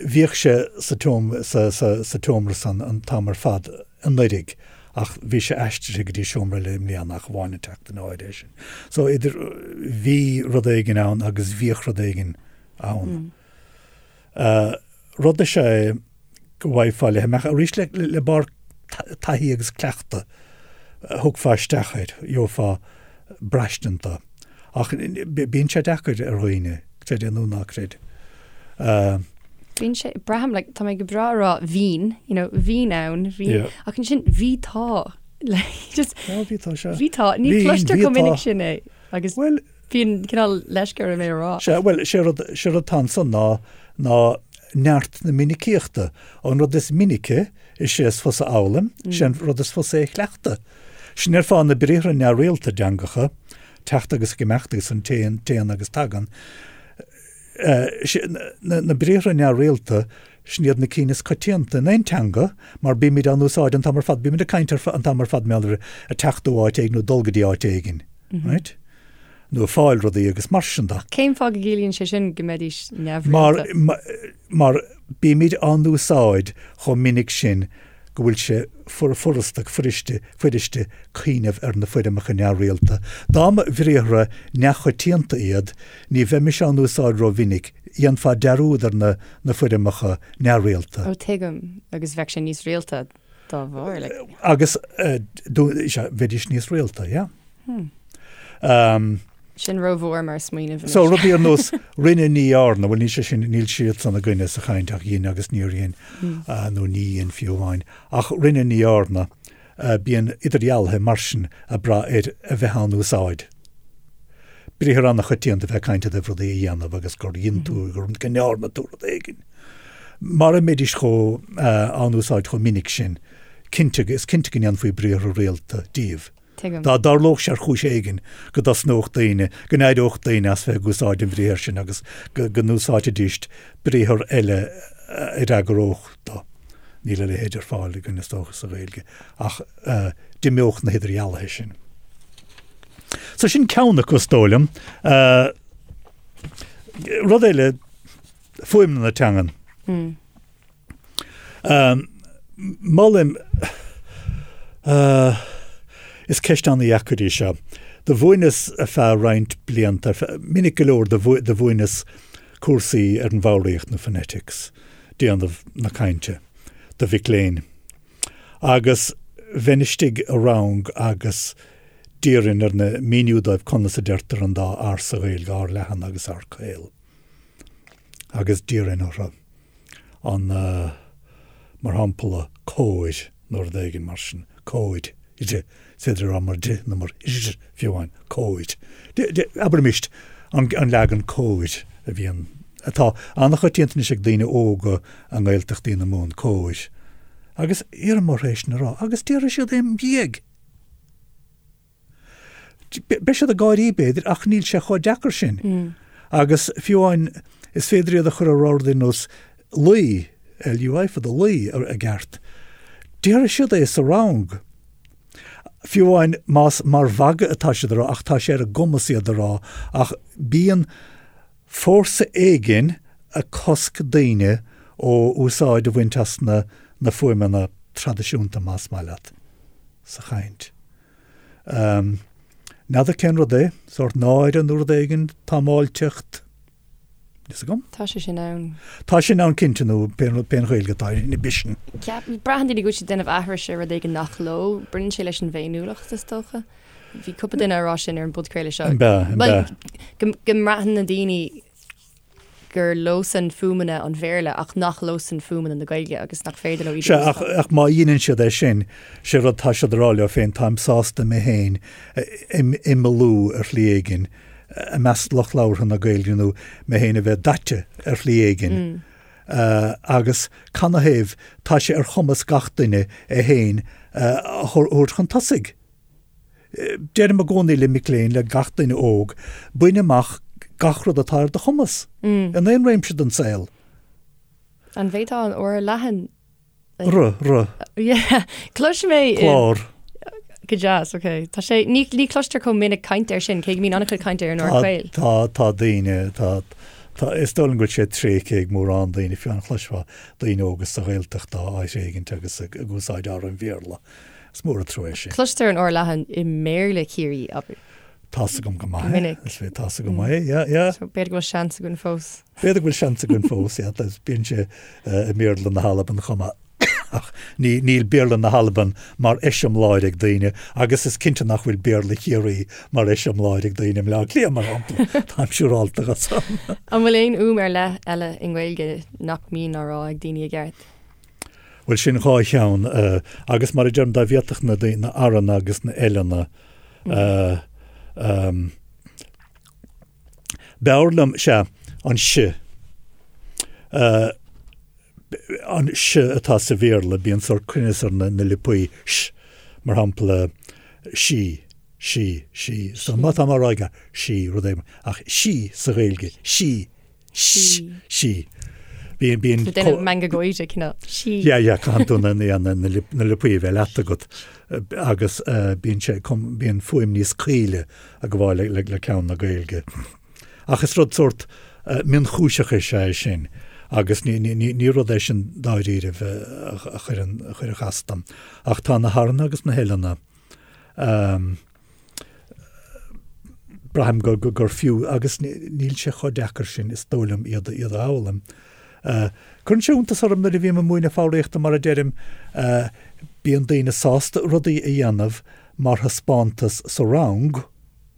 Bhíodh sé sa sa, sa, sa tseomra san an t-am ar fad anuraidh ach bhí sé aistrithe go dtí seomra eile i mbliana ach amháin an tseachtain áirithe sin. So idir bhí rud éigin ann agus bhíodh rud éigin ann. Rud is ea é go bhfaighfeá le himeacht arís le, le barr taithí agus cleachtadh thiocfá isteach air, gheofá braistint dó. Ach bíonn sé deacair ar dhaoine, creid é nó ná creid. Bíonn sé, braithim, like, tá mé go breá a rá bhínn, you know, bhínn ann, bhí, yeah. ach ansin bhí tá, like, just, oh, bhí tá, sea. Bhí tá, ní chloistear chomh minic sin é, agus well, bíonn cineál leisce orm é a rá. Sea, bhuel, sé rud, sé rud atá ansan ná, ná neart na minicíochta. An rud is minice, is é is fusa a fhoghlaim, mm. sé an rud is fusa é a chleachtadh. Sin ar fáth na briathra neamhrialta i dteangacha, teacht agus ag imeacht agus an téann, téann agus tagann. Na briathra neamhrialta, sin iad na cinn is coitianta in aon teanga mar bímid á n-úsáid an t-am ar fad, bímid ag caint an t-am ar fad mar gheall ar teacht ó áit éigin nó dul go dtí áit éigin, right? Nó ag fáil rudaí agus mar sin de. Cén fáth go gciallaíonn sé sin go mbeidís neamhrialta? Mar, mar bímid á n-úsáid chomh minic sin go bhfuil sé furasta, fuiriste, fuiriste cuimhneamh ar na foirmeacha neamhrialta. Dá mba bhriathra neamhchoitianta iad, ní bheimis á n-úsáid rómhinic, dhéanfá dearúd ar na na foirmeacha neamhrialta. Ó, tuigim, agus bheadh sé níos rialta. Dá bharr, like. Agus sea, bheidís níos rialta, yeah. Hmm. Sin rómhór mar smaoineamh anois. So rudaí ar nós rinne ní dhearna, bhuel níl sé sin, níl siad san againne sa chaint ach dhein agus níor dhein nó ní dhein fiú amháin. Ach rinne ní dhearna, bíonn idirdhealuithe mar sin ag brath ar a bheith á n-úsáid. Briathar an-choitianta bheith ag caint i dtaobh rudaí a dhéanamh agus gur dhein tú, go ndearna tú rud éigin. Mara mbeidís chomh á n-úsáid chomh minic sin, cinnte, is cinnte go ndéanfaí briathra rialta díobh. Tuigim. Dá dtarlódh sé ar chúis éigin go dtosnódh daoine, go n-éireodh daoine as bheith ag úsáid an bhriathair sin agus go n-úsáidfidís briathar eile a fhreagródh dó. Níl a leithéid ar fáil againn is dócha sa Ghaeilge ach d'imeodh na hidirdhealuithe sin. So sin ceann acu is dóigh liom. Rud eile, fuaimniú na teangan. Molaim, is ceist an-dheacair í seo. Do mhúineas ar feadh roinnt blianta, minic go leor do mhúineas cúrsaí ar an bhfoghraíocht nó phonetics, déanamh na cainte, do mhic léinn. Agus bheinn istigh i rang agus d'iarrainn ar na, míniú dóibh conas a deirtear an dá R sa Ghaeilge, R leathan agus R caol. Agus d'iarrainn orthu. an, mar shampla, cóir nó rud éigin mar sin, cóir, is féidir a rá mar d nó mar r fiú amháin, cóir. Abraimis an leagan cóir a bhíonn, atá an-choitianta anois ag daoine óga i nGaeltachtaí na Mumhan, cóir. Agus iarraim orthu é sin a rá, agus déarfaidh siad é im dhiaidh. Beidh siad ag gáirí, b'fhéidir, ach níl sé chomh deacair sin. Agus fiú amháin, is féidir iad a chur a rá rudaí ar nós luí, L-U-I fada, luí, i gceart. Déarfaidh siad é sa rang. Fiú amháin más mar mhagadh atá siad a rá, ach tá sé ar a gcumas iad a rá, ach bíonn fórsa éigin ag cosc daoine ó úsáid a bhaint as na na fuaimeanna traidisiúnta, más maith leat, sa chaint. N'fheadar cén rud é, sórt náire nó rud éigin, támáilteacht, níl 's agam. Tá sé sin ann. Tá sin ann cinnte nó pén rud, pén Ghaeilge atá air, inhibition. Ceap, braitheann daoine go bhfuil siad ag déanamh aithris ar rud éigin nach leo. Baineann sé leis an bhféiniúlacht is dócha. Bhí cúpla duine ag rá sin ar an bpodchraoladh seo. An b'ea, an b'ea. Bhuel, go mbraitheann na daoine gur leosan fuaimeanna an Bhéarla ach nach leosan fuaimeanna na Gaeilge agus nach féidir leo iad a Sea, ach, úsáid. ach má dheineann siad é sin, sé rud tá siad a rá leo féin, táim sásta mé féin a imeallú ar shlí éigin i measc lucht labhartha na Gaeilge nó mé féin a bheith daite ar shlí éigin. Agus canathaobh tá sé ar chumas gach duine é féin a thabhairt chun tosaigh. Deirim i gcónaí le mic léinn, le gach duine óg, bain amach gach rud atá ar do chumas, in aon réimse den saol. An bhféadfá an R leathan a. R, r. Yeah, cloisim é i. Clár. Go deas, ok. Tá sé, ní, ní cloistear chomh minic caint air sin, cé go mbíonn an-chuid cainte ar an R caol. Tá, tá daoine, tá, tá, is dóigh liom go bhfuil sé tréigthe ag mórán daoine, fiú amháin chloisfeá daoine óga sa Ghaeltacht á thréigint agus ag úsáid R an Bhéarla. Is mór an trua é sin. Cloistear an R leathan i mBéarla Chiarraí, abair. Tá's agam go maith é. Minic. Is féidir, tá's agam go maith é, yeah, yeah. So b'fhéidir go bhfuil seans againn fós. B'fhéidir go bhfuil seans againn fós, yeah. Bíonn sé i mBéarla na hAlban chomh maith. Ach ní, níl Béarla na hAlban mar eiseamláir ag daoine agus is cinnte nach bhfuil Béarla Chiarraí mar eiseamláir ag daoine i mBleá Cliath, mar shampla. Táim siúrálta de san. An bhfuil aon fhuaim ar leith eile i nGaeilge nach mbíonn á rá ag daoine i gceart? Bhuel, sin dhá cheann, agus mar a deirim, dá bhféadfadh na daoine, na R-anna agus na L-anna, b'fhearr liom, sea, an S, an S atá sa Bhéarla, bíonn sórt cruinneas ar na liopaí, S, mar shampla, sí, sí, sí, so má tá mé á rá aige, sí, rud éigin, ach sí sa Ghaeilge, sí, Sí. Sí. Bíonn, bíonn. Tá déanamh meangadh gáire, cineál. Sí. Yeah, yeah, caitheann tú na, na, na, na liopaí a bheith leat agat agus bíonn sé, bíonn fuaim níos caoile ag gabháil le, le, le ceann na Gaeilge. Ach is rud sórt mionchúiseach is ea é sin agus ní, ní, ní, ní rud é sin dáiríribh a, a chuireann, a chuirfeadh as dom. Ach tá na h-R-anna agus na h-L-anna. Braithim gur fiú, agus níl sé chomh deacair sin, is dóigh liom, iad a fhoghlaim. Cuireann sé iontas orm nuair a bhím ag múineadh foghraíochta, mar a deirim. Bíonn daoine sásta rudaí a dhéanamh mar thaispeántas sa rang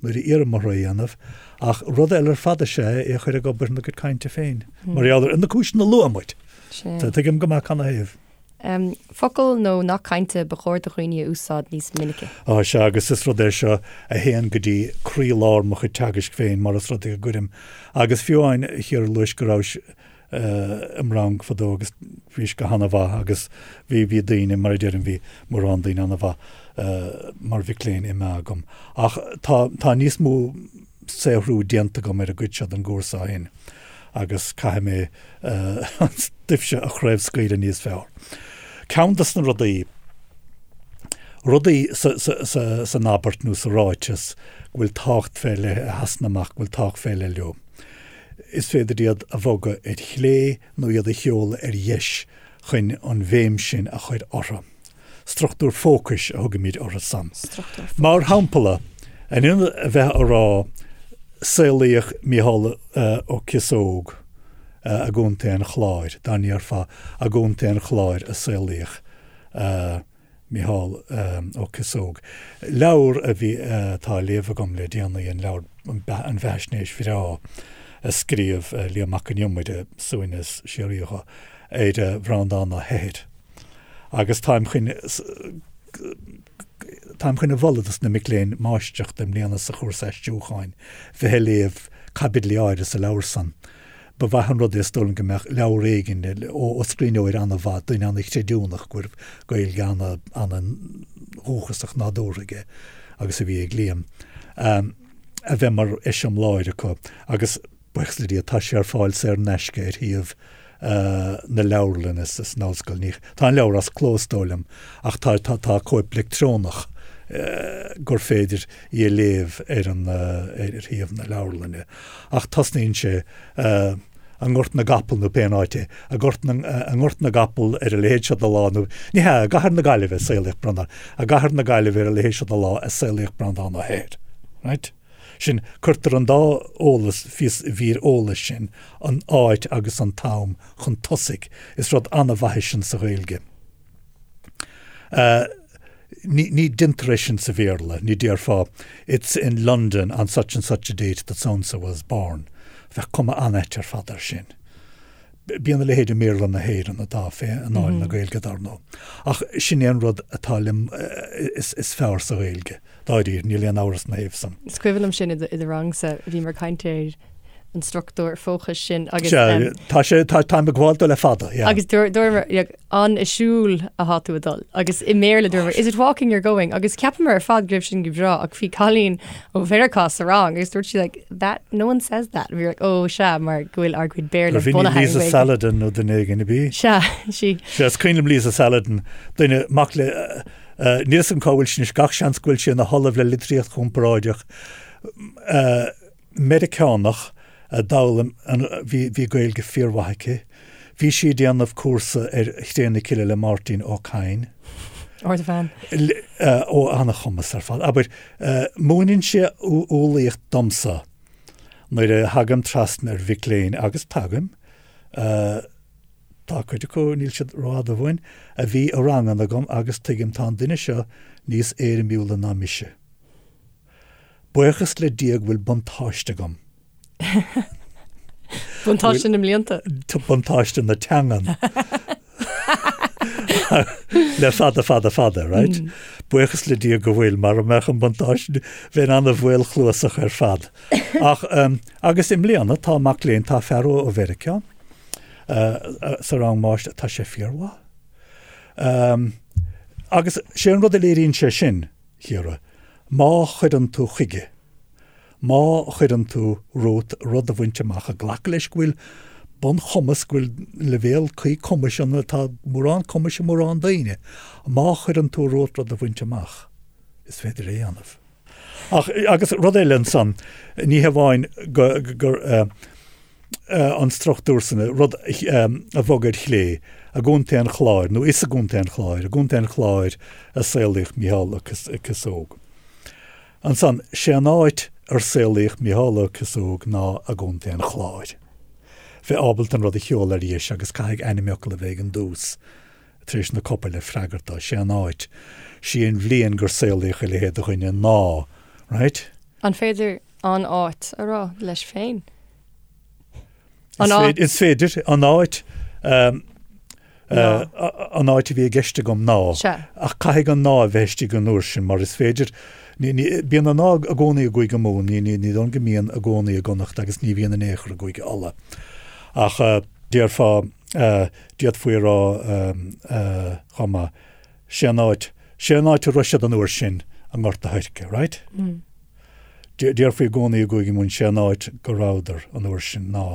nuair a iarraim orthu é a dhéanamh, ach rud eile ar fad is ea é a chur ag obair ina gcuid cainte féin, mar gheall ar na cúiseanna a luaigh muid. Tuigim go maith canathaobh. Focal nó nath cainte ba chóir do dhaoine a úsáid níos minice. Á, sea, agus is rud é seo a théann go dtí croílár mo chuid teagaisc féin, mar is rud é go gcuirim, agus fiú amháin, a Chiara, luais go rabhais im rang fadó agus bhís go hana-mhaith agus bhí, bhí daoine, mar a deirim, bhí mórán daoine ana-mhaith mar mhic léinn imithe agam. Ach tá, tá níos mó saothrú déanta agam ar an gcuid seo den gcúrsa ó shin agus caithfidh mé an stuif seo a chraobhscaoileadh níos fearr. Ceann de na rudaí, rudaí san abairt nó sa ráiteas go bhfuil tábhacht fé leith, a sheasann amach, go bhfuil tábhacht fé leith leo, is féidir iad a bhogadh ar chlé nó iad a sheoladh ar dheis chun an bhéim sin a chur orthu. Struchtúr fócais a thugaimid orthu san. Mar shampla, in ionad a bheith a rá saolaíodh Mícheál Ó Cíosóg i gContae an Chláir, dá ndéarfá i gContae an Chláir a saolaíodh Mícheál Ó Cíosóg. Leabhar a bhí, atá á léamh agam le déanaí, an leabhar, an bheathaisnéis bhreá a scríobh Liam Mac Con Iomaire, suaimhneas síoraí dho, ar Bhreandán Ó hEithir. Agus táim chun, táim chun a mholadh dos na mic léinn máistreachta i mbliana sa chúrsa aistriúcháin bheith ag léamh caibidlí áirithe sa leabhar san. Ba mhaith an rud é is dóigh liom go mbeadh leabhar éigin ó scríbhneoir ana-mhaith, duine ana-chreidiúnach go raibh Gaeilge ana-dhúchasach nádúrtha aige agus a bhí ag Liam, a bheith mar eiseamláir acu agus buíochas le Dia tá sé ar fáil saor in aisce ar shuíomh na leabharlainne san ollscoil. Ní, tá an leabhar as cló is dóigh liom ach tá, tá, tá cóip leictreonach gur féidir í a léamh ar an, ar shuíomh na leabharlainne. Ach tosnaíonn sé i nGort na gCapall nó pé áit é, i nGort na, i nGort na gCapall ar a leithéid seo de lá nó, ní hea, i gCathair na Gaillimhe a saolaíodh Breandán, i gCathair na Gaillimhe ar a leithéid seo de lá a saolaíodh Breandán Ó hEithir. Right? Sin, cuirtear an dá eolas, mhír eolais sin, an áit agus an t-am, chun tosaigh. Is rud an-mhaith é sin sa Ghaeilge. Ní, ní deintear é sin sa Bhéarla, ní déarfá It's in London on such and such a date that so-and-so was born. Bheadh cuma an-ait ar fad air sin. Bíonn a leithéid i mBéarla na hÉireann atá fé anáil na Gaeilge, dar ndóigh. Ach sin é an rud atá liom is, is fearr sa Ghaeilge. Dáiríre, níl aon amhras ina thaobh san. Is cuimhin liom sin i do rangsa, bhíomar ag caint ar an struchtúr fócais sin agus. Sea, tá sé, tá, táim ag gabháil dó le fada, yeah. Agus dúramar, an ag siúl atá tú ag dul? Agus i mBéarla dúramar, is it walking you're going? Agus cheapamar ar fad go raibh sin go breá ach bhí cailín ó Mheiriceá sa rang agus dúirt sí like, that, no one says that. Bhí like, oh sea, mar go bhfuil ár gcuid Béarla bunaithe ar Ghaeilge. Lisa Saladin nó duine éigin a bhí? Sea, sí. Sea, is cuimhin liom Lisa Saladin, duine, mac le, Níl 'fhios agam cá bhfuil sí anois, gach seans go bhfuil sí ina hollamh le litríocht chomparáideach Meiriceánach a d'fhoghlaim an, bhí, bhí Gaeilge fíormhaith aici. Bhí sí ag déanamh cúrsa ar Chré na Cille le Máirtín Ó Cadhain. Ardbhean. Ó, ana-chumas ar fad. Abair, múineann sé umhlaíocht domsa nuair a thagaim trasna ar mhic léinn, agus tagaim, Tá cuid acu, níl siad rófhada uainn, a bhí i ranganna agam agus tuigim tá an duine seo níos éirimiúla ná mise. Buíochas le Dia go bhfuil buntáiste agam. Buntáiste na mblianta. Buntáiste na teangan. Le fada fada fada, right? Buíochas le Dia go bhfuil, mara mbeadh an buntáiste, bheinn an-mhaolchluasach ar fad. Ach, agus i mbliana tá mac léinn, tá fear ó Mheiriceá, sa rang máistir, tá sé fíormhaith. Agus sé an rud a léiríonn sé sin, Chiara, má chuireann tú chuige, má chuireann tú romhat rud a bhaint amach, ag glacadh leis go bhfuil bunchumas, go bhfuil leibhéal cuí cumais ann, tá mórán cumais i mórán daoine, má chuireann tú romhat rud a bhaint amach, is féidir é a dhéanamh. Ach, agus rud eile ansan, ní hamháin go, gur, an struchtúr san, rud a bhogadh ar chlé, i gContae an Chláir, nó is i gContae an Chláir, i gContae an Chláir a saolaíodh Mícheál Ó Cíosóg. Ansan, sé an áit ar saolaíodh Mícheál Ó Cíosóg ná i gContae an Chláir. Bheith ábalta an rud a sheoladh ar dheis agus caithfidh ainmfhocal a bheith ag an dtús. Tar éis na copail le freagairt dó, sé an áit, sí an bhliain gur saolaíodh a leithéid de dhuine ná, right? An féidir an áit a rá leis féin? An áit. Is féidir, an áit, an áit a bhí i gceist agam ná. Sea. Ach caithfidh an ná a bheith istigh an uair sin mar is féidir, bíonn an ná i gcónaí i gCúige Mumhan, ní dóigh liom go mbíonn i gcónaí i gConnacht agus ní bhíonn in aon chor i gCúige Uladh. Ach déarfá, d'fhéadfaí a rá chomh maith, sé an áit, sé an áit a raibh siad an uair sin i nGort a' Choirce, right? Déarfaí i gcónaí i gCúige Mumhan sé an áit go rabhadar an uair sin ná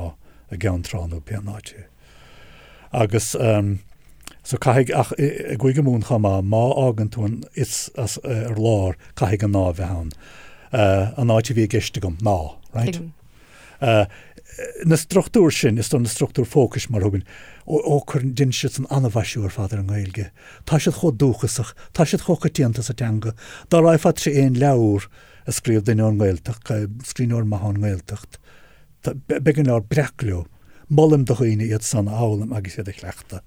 i gCeann Trá nó pé an áit é. Agus so caithfidh, ach i gCúige Mumhan chomh maith, má fhágann tú an is as ar lár, caithfidh an ná a bheith ann. An áit a bhí i gceist agam ná, right? Tuigim. Na struchtúir sin, is dóigh na struchtúir fócais mar a thugann, ó cuireann, déanann siad san an-mhaisiú ar fad ar an nGaeilge. Tá siad chomh dúchasach, tá siad chomh coitianta sa teanga. Dá raghfá trí aon leabhar a scríobh duine ón nGaeltacht, scríbhneoir maith ón nGaeltacht, beidh an leabhar breac leo. Molaim do dhaoine iad san a fhoghlaim agus iad a chleachtadh.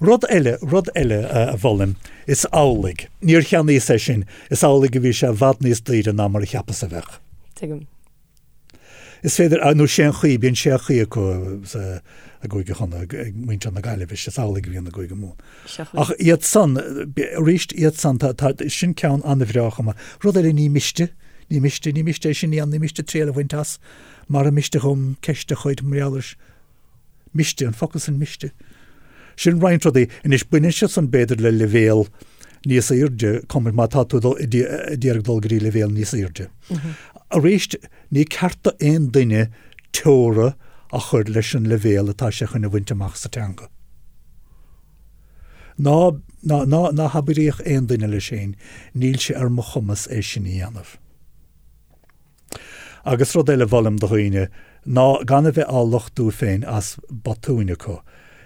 Rud eile, rud eile a mholaim, is amhlaidh, níor cheannaíos é sin, is amhlaidh a bhí sé i bhfad níos daoire ná mar a cheapas a bheadh. Tuigim. Is féidir, nó sé an chaoi, bíonn sé chaoi acu sa, i gCúige Chonnacht, ag muintir na Gaillimhe, is amhlaidh a bhíonn i gCúige Mumhan. Ach iad san, arís iad san, tá, tá, sin ceann an-bhreá chomh maith. Rud eile, ní miste, ní miste, ní miste é sin a dhéanamh, ní miste triail a bhaint as, mara miste dhom ceist a chur mar gheall air. Miste, an focal sin miste. Sin roinnt rudaí. Anois, baineann siad san b'fhéidir le leibhéal níos airde, cumair, má tá tú ag iarraidh dul go dtí leibhéal níos airde. Arís, ní ceart do aon duine teora a chur leis an leibhéal atá sé chun a bhaint amach sa teanga. Ná, ná, ná, ná habraíodh aon duine leis féin, níl sé ar mo chumas é sin a dhéanamh. Agus rud eile a mholaim do dhaoine ná gan a bheith á lochtú féin as botúin acu.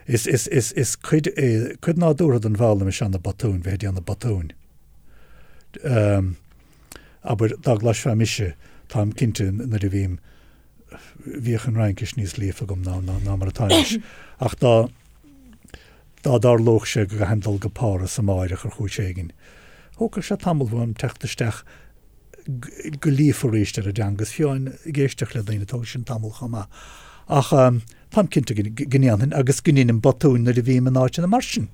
Is, is, is, is cuid é, cuid nádúrtha den bhfoghlaim is ea na botúin, bheith ag déanamh botúin. Ehm, abair, dá gcloisfeá mise, táim cinnte nuair a bhím, bhíodh an Fhraincis níos líofa agam ná, ná, ná mar atá anois, ach dá, dá dtarlódh sé go gcaithfinn dul go Páras amáireach ar chúis éigin, thógfadh sé tamall uaim teacht isteach go líofa arís ar an dteanga is fiú ag éisteacht le daoine, tógann sin tamall chomh maith. Ach táim cinnte go ndéanfainn agus go ndeinim botúin nuair a bhím in áiteanna mar sin.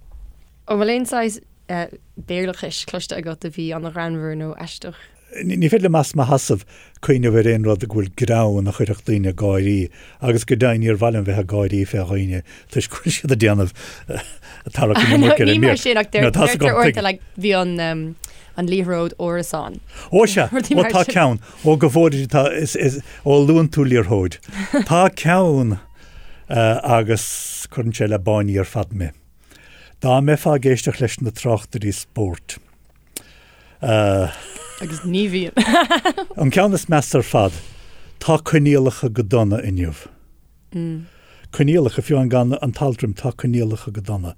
An bhfuil aon saghas Béarlachais cloiste agat a bhí an-ghreannmhar nó aisteach? Ní féidir liom as mo sheasamh cuimhneamh ar aon rud go bhfuil greann a chuirfeadh daoine ag gáirí agus go deimhin níor mhaith liom bheith ag gáirí fé dhaoine toisc go bhfuil siad ag déanamh tarrac an iomarca ar an mír. Ní mar sin ach deirtear uaireanta like bhí an an liathróid árasán. Ó sea, ó tá ceann, ó go bhfóire tá, is, is, ó luann tú liathróid. Tá ceann agus cuireann sé le báiní ar fad mé. Dá mbeifeá ag éisteacht leis na tráchtairí spóirt, Agus ní bhíonn. An ceann is measa ar fad, tá coinníollacha go dona inniu. Coinníollacha, fiú amháin gan an t-alt roimhe, tá coinníollacha go dona.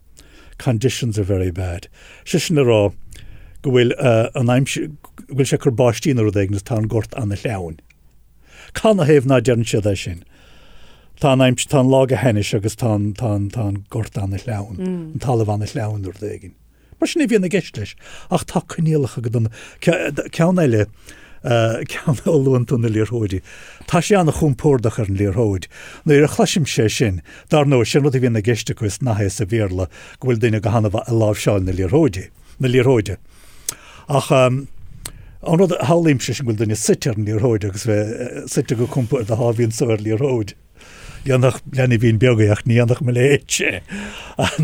Conditions are very bad. Sé sin le rá go bhfuil an aimsir, go bhfuil sé ag cur báistí nó rud éigin agus tá an gort ana-shleamhain. Canathaobh ná deireann siad é sin? Tá an aimsir, tá an lá go hainnis agus tá an, tá an, tá an gort ana-shleamhain, an talamh ana-shleamhain nó rud éigin. Mar sin a bhíonn i gceist leis. Ach tá coinníollacha go dona. Ceann eile, ceann ó luann tú na liathróidí. Tá sé an-chompordach ar an liathróid. Nuair a chloisimse é sin, dar ndóigh, sin rud a bhíonn i gceist acu is nath é sa Bhéarla go bhfuil duine go han-mhaith ag láimhseáil na liathróidí, na liathróide. Ach an rud a shamhlaímse sin go bhfuil duine suite ar an liathróid agus bheith suite go compordach á bhíonn so ar liathróid. Dhéanfadh leanbhín beag é ach ní dhéanfadh mo leithéidse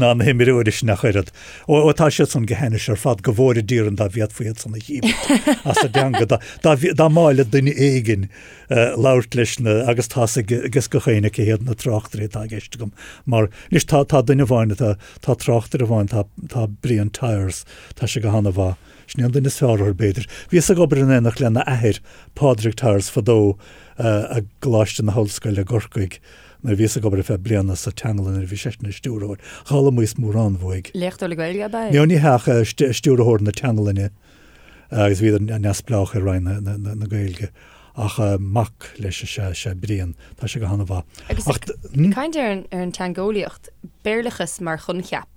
ná na himreoirí sin ach oiread. Ó, tá siad san go hainnis ar fad, go bhfóire Dia orainn dá bhféadfaí iad san a dhíbirt as an dteanga. Dá, dá, dá mb'áil le duine éigin labhairt leis na, agus tá's ag gach éinne cé hiad na tráchtairí atá i gceist agam. Mar, anois tá, tá duine amháin atá, tá tráchtaire amháin, tá, tá Brian Tyers, tá sé go han-mhaith. Sin é an duine is fearr orthu, b'fhéidir. Bhíos ag obair in éineacht lena athair, Pádraig Tyers, fadó, i gColáiste na hOllscoile i gCorcaigh nuair a bhíos ag obair ar feadh bliana sa teanglann nuair a bhí seisean ina stiúrthóir. D'fhoghlaimíos mórán uaidh. Léachtóir le Gaeilge ab ea é? No, ní hea ach stiúrthóir na teanglainne agus bhíodar neamhspleách ar Roinn na Gaeilge. Ach mac leis is ea, is ea Brian. Tá sé go han-mhaith. Agus ag caint ar an teangeolaíocht, Béarlachas mar choincheap.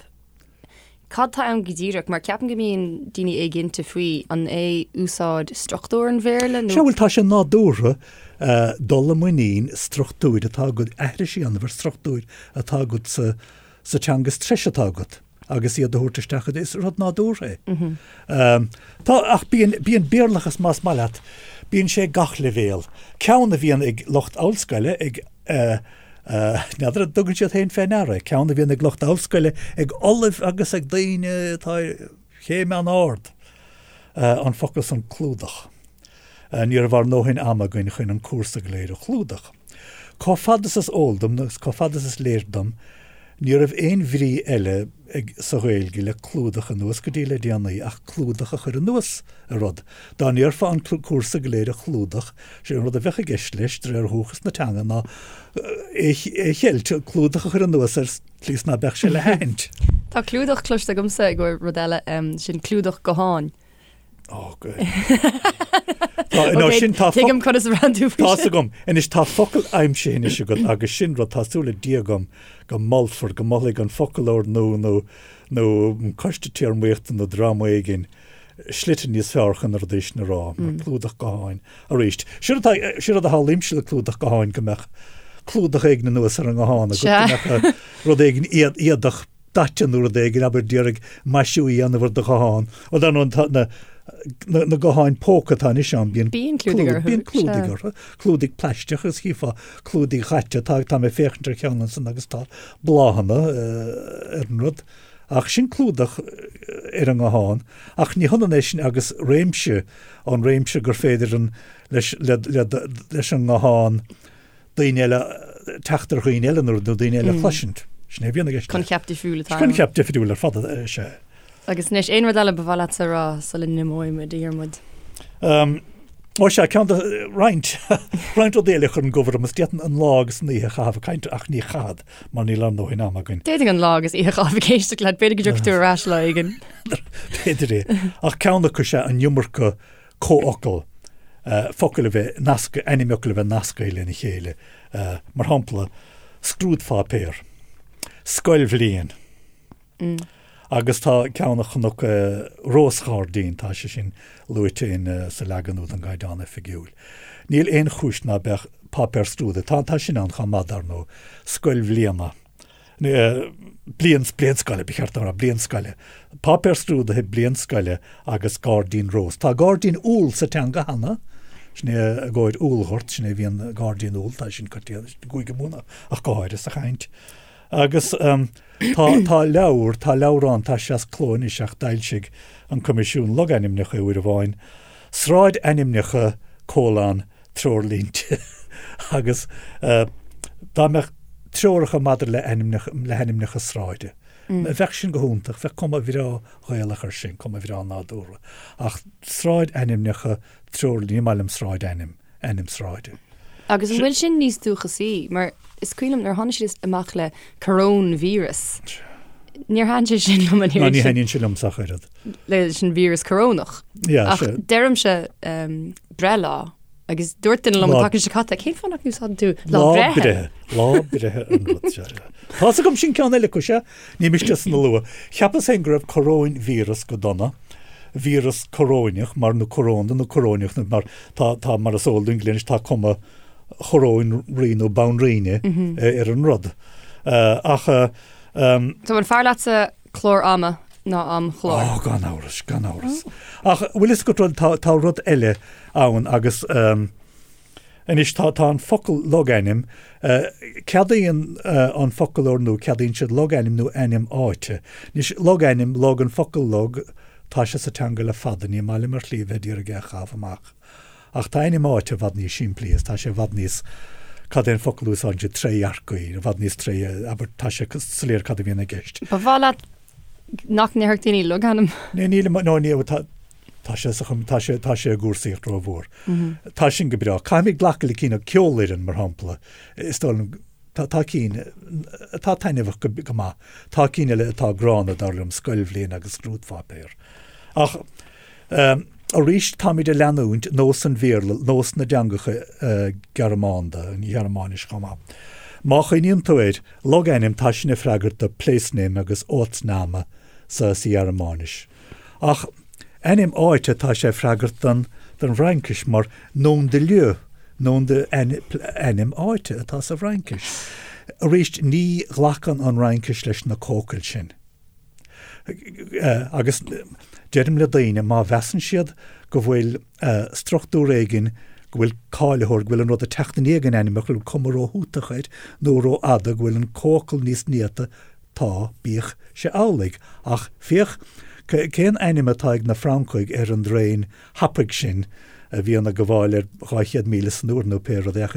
Cad tá ann go díreach? Mar ceapaim go mbíonn daoine éiginnte faoi, an é úsáid struchtúr an Bhéarla nó. Sea, bhuel, tá sé nádúrtha dul i muinín struchtúir atá agat, aithris a dhéanamh ar struchtúir atá agat sa sa teanga is treise atá agat agus iad a thabhairt isteach, is rud nádúrtha é. Tá, ach bíonn, bíonn Béarlachas más maith leat, bíonn sé ag gach leibhéal. Ceann a bhíonn ag lucht ollscoile, ag. N'fheadar an dtugann siad féin fé ndeara é, ceann a bhíonn ag lucht ollscoile, ag ollaimh agus ag daoine atá ar chéim an-ard, an focal san clúdach. Ní raibh ár ndóthain ama againn chun an cúrsa go léir a chlúdach. Chomh fada is is eol dom, agus chomh fada is is léir dom, ní raibh aon bhrí eile ag sa Ghaeilge le clúdach anuas go dtí le déanaí ach clúdach a chur anuas ar rud. Dá ndéarfá an cúrsa go léir a chlúdach, sé an rud a bheadh i gceist leis, de réir dhúchas na teanga, ná é a cheilt, clúdach a chur anuas air slí is ná beadh sé le haithint. Tá clúdach cloiste agamsa i gcomhair rud eile, sin clúdach gutháin. Ó, go. Tá, nó sin tá Tuigim conas a bhraitheann tú faoi Tá's agam. Anois tá focal aimsithe anois agat agus sin rud tá súil le Dia agam go molfar, go molfaidh an foclóir nua nó nó an coiste téarmaíochta nó dream éigin slite níos fearr chun na rudaí sin a rá, mar clúdach gutháin arís. Sin rud atá, sin rud a shamhlaímse le clúdach gutháin go mbeadh clúdach éigin anuas ar an nguthán agat, go mbeadh rud éigin éadach daite nó rud éigin, abair d'iarraidh maisiú a dhéanamh ar do ghuthán. Bhuel, dar ndóigh, tá na, na, na gutháin póca atá anois ann, bíonn Bíonn clúdaigh orthu, bíonn clúdaigh orthu, clúdaigh plaisteach agus chífeá clúdaigh dhaite, tá, tá mé ag féachaint ar cheann ansan agus tá bláthanna ar an rud. Ach sin clúdach ar an nguthán, ach ní hionann é sin agus réimse, an réimse gur féidir an, leis, le, le, leis an nguthán daoine eile, teacht ar dhaoine eile nó daoine eile a chloisint. Sin é a bhíonn i gceist. Coincheap difriúil atá ann. Coincheap difriúil ar fad is ea. Agus anois, aon rud eile ba mhaith leatsa a rá sula n-imeoidh muid, a Dhiarmuid? Ó sea, ceann de roinnt, roinnt rudaí eile a chuireann gomh orm is d'fhéadfainn an lá agus an oíche a chaitheamh ag caint ach ní chaithfead mar níl ár ndóthain ama againn. D'fhéadfainn an lá agus oíche a chaitheamh ag éisteacht leat, b'fhéidir go dtiocfaidh tú ar ais lá éigin. B'fhéidir é. Ach ceann acu is ea an iomarca comhfhocal, focail a bheith nasctha, ainmfhocail a bheith nasctha lena chéile. Mar shampla, scrúdpháipéar, scoilbhliain. Agus tá ceann a chonac, rósghairdín, tá sé sin luaite in sa leagan úd den gCaighdeán Oifigiúil. Níl aon chúis ná beadh páipéar scrúdaithe, tá, tá sin ann chomh maith, dar ndóigh, scoil bhliana, bliain, bliain scoile, ba cheart dom a rá, bliain scoile, páipéar scrúdaithe, bliain scoile agus gairdín rós. Tá gairdín úll sa teanga cheana, sin é i gcomhair úllghort, sin é a bhíonn gairdín úll, tá sin coitianta i gCúige Mumhan ach go háirithe sa chaint. Agus tá, tá leabhar, tá leabhrán, tá sé as cló anois ach d'fhoilsigh an Coimisiún Logainmneacha uair amháin, Sráidainmneacha colon treoirlínte agus dá mbeadh treoracha maidir le ainmneacha, le hainmneacha sráide, bheadh sin go hiontach, bheadh cuma bhreá Ghaelach air sin, cuma bhreá nádúrtha. Ach sráidainmneacha treoirlínte, ní maith liom sráidainm. ainm sráide. Agus an bhfuil sin níos dúchasaí? Mar is cuimhin liom nuair a tháinig siad amach le coróinvíreas, níor thaitin sé sin liom an oiread. Ná ní thaitníonn sé liomsa ach oiread. Leis an víreas corónach. Yeah, Ach deirimse breithlá agus dúirt duine liom an tseachtain seo caite, cén fáth nach n-úsáideann tú lá breithe? Lá breithe an rud seo. Tá's agam sin ceann eile acu, sea. Ní miste san a lua. Cheapas féin go raibh coróinvíreas go dona, víreas coróineach, mar nó corónda nó coróineach nó mar tá, tá, mar is eol dúinn go léir anois, tá cuma choróin rí nó banríona ar an rud. Ach. So an fearr leatsa clár ama ná amchlár? Ó, gan amhras, gan amhras. Ach bhfuil fhios agat rud, tá, tá rud eile ann agus. Anois tá tá an focal logainm, ceadaíonn an foclóir nua, ceadaíonn siad logainm nó ainm áite. Anois logainm, log, an focal log, tá sé sa teanga le fada, ní maith liom ar shlí a bheith d'iarraidh é a chaitheamh amach. Ach tá ainm áite i bhfad níos simplí is tá sé i bhfad níos, cad é an focal a úsáideann siad, trédhearcaí, i bhfad níos tré, abair, tá sé soiléir cad a bhíonn i gceist. Ba mhaith leat nach ndéarfadh daoine logainm? Ní, nílim, no, ní, tá, Tá sé sa chum, tá sé, tá sé i gcúrsaíocht rómhór. Tá sin go breá. Caithfimid glacadh le cinn, ceolfhoireann, mar shampla. Is dóigh liom, tá, tá cinn atá taitneamhach go, go maith. Tá cinn eile atá gránna, dar liom, scoilbhliain agus scrúdpháipéar. Ach, arís, táimid ag leanúint nós an Bhéarla, nós na dteangacha Gearmánda, an Ghearmáinis chomh maith. Má chuimhníonn tú air, logainm, tá sin ag freagairt do place name agus Ortsname. sa Ghearmáinis. Ach ainm áite, tá sé ag freagairt don bhFraincis mar nom de lieu, nom de ainm áite atá sa bhFraincis. Arís, ní ghlacann an Fhraincis leis na comhfhocail sin. Agus deirim le daoine, má mheasann siad go bhfuil struchtúr éigin, go bhfuil cáilitheoir, go bhfuil an rud ag teacht i ndiaidh an ainm, go bhfuil cuma róthútach air nó rófhada, go bhfuil an comhfhocal níos néata, tá, bíodh sé amhlaidh. Ach féach cén ainm atá ag na Francaigh ar an dtraein thapaidh sin a bhíonn ag gabháil ar 200 míle san uair nó pé rud é,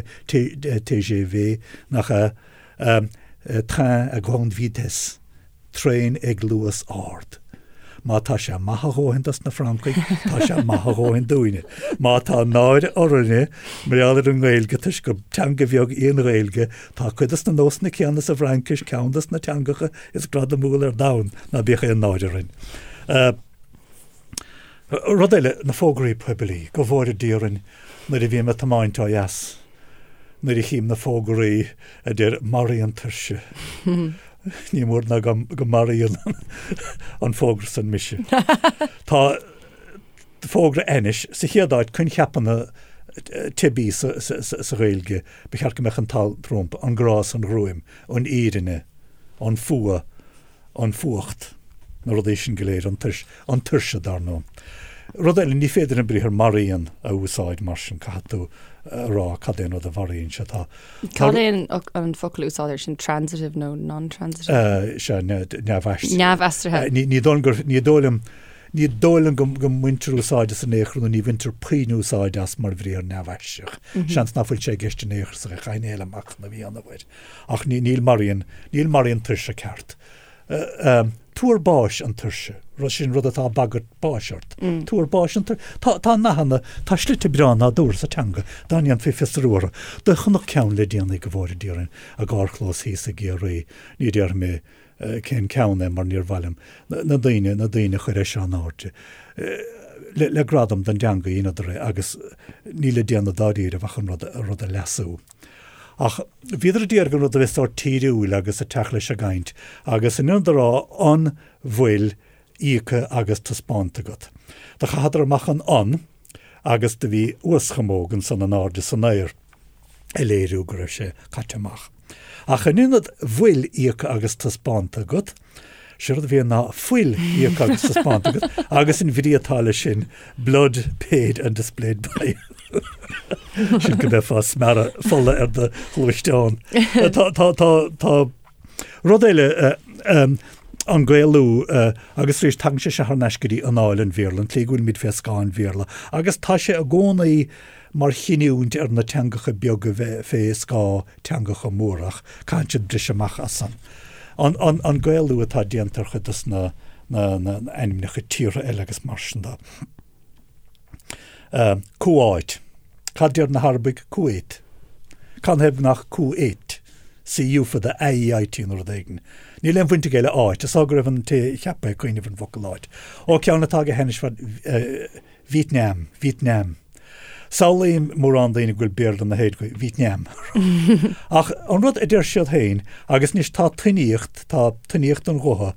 TGV, nach ea? Train à grande vitesse, traein ag luas ard. Má tá sé maith a dhóthain dos na Francaigh, tá sé maith a dhóthain dúinne. Má tá náire orainne mar gheall ar an nGaeilge toisc gur teanga bheag í an Ghaeilge, tá cuid dos na nósanna céanna sa bhFraincis, ceann dos na teangacha is gradamúla ar domhan, ná bíodh aon náire orainn. Rud eile, na fógraí poiblí. Go bhfóire Dia orainn nuair a bhím ag tiomáint ó dheas, nuair a chím na fógraí a deir 'Maraíonn tuirse'. Ní mór ná go maraíonn an fógra san mise. Tá fógra ainnis, sa chéad áit, coincheapanna teibí sa Ghaeilge, ba cheart go mbeadh an t-alt rompu, an grá is an ghruaim, an fhírinne, an fuath, an fuacht, na rudaí sin go léir, an tuirse, an tuirse dar ndóigh. Rud eile, ní féidir an briathar maraíonn a úsáid mar sin, caithfidh tú a rá cad é an rud a mharaíonn sé. Tá, Cad é an, an focal a úsáidtear sin transitive nó non-transitive? Sea, neamhaistrithe. Neamhaistrithe. Ní, ní dóigh liom gur, ní dóigh liom, ní dóigh liom go, go mbaintear úsáid as in aon chor nó ní bhaintear puinn úsáid as mar bhriathar neamhaistreach. Seans nach bhfuil sé i gceist in aon chor sa chaithfinn é le machnamh a dhéanamh air. Ach ní, níl maraíonn, níl maraíonn tuirse ceart. Tuar báis an tuirse, rud sin rud atá ag bagairt báis ort. Tuar báis an tuirse. Tá, tá nathanna, tá slite breá nádúrtha sa teanga dá ndéanfaí fiosrú orthu. Do chonac ceann le déanaí go bhfóire Dia orainn i gcarrchlós thíos i gCiarraí, ní déarfaidh mé cén ceann é mar níor mhaith liom na daoine, na daoine a chur é seo in airde. Le, le gradam don dteanga dheineadar é agus níl le déanamh dáiríribh ach an rud, an rud a leasú. Ach bhíodar ag iarraidh an rud a bheith sórt tíriúil agus ag teacht leis an gcaint, agus in ionad a rá an bhfuil íoctha agus taispeánta agat? Do chaitheadar amach an an agus do bhí uaschamóg ansan in airde san aer ag léiriú go raibh sé caite amach. Ach in ionad bhfuil íoctha agus taispeánta agat, Sé rud a bhí ann ná fuil íoctha agus taispeánta agat agus an bhrí atá leis sin blood paid and displayed by sin go mbeifeá ag smearadh fola ar do ghluaisteán. Tá, tá, tá, tá rud eile an Gaelú agus arís tagann sé seo thar n-ais go dtí anáil an Bhéarla, an tslí go bhfuilimid fé scáth an Bhéarla agus tá sé i gcónaí mar chinniúint ar na teangacha beaga bheith fé scáth teangacha móra ach caitheann siad briseadh amach as san. An Gaelú atá déanta ar chuid dos na ainmneacha tíortha eile agus mar sin de. Cuáit. Cad deir na hArabaigh? Kuwait. Canathaobh nach Cu-ait? C-U fada A-E-I-T nó rud éigin. Níl aon bhaint aige le áit. Is dóigh go raibh an té a cheap é ag cuimhneamh ar an bhfocal áit. Ó, ceann atá go hainnis fad Vítneam, Vítneam. Samhlaím mórán daoine go bhfuil Béarla na hÉireann, Vítneam. Ach an rud a deir siad féin, agus anois tá tuiníocht, tá tuiníocht an ghutha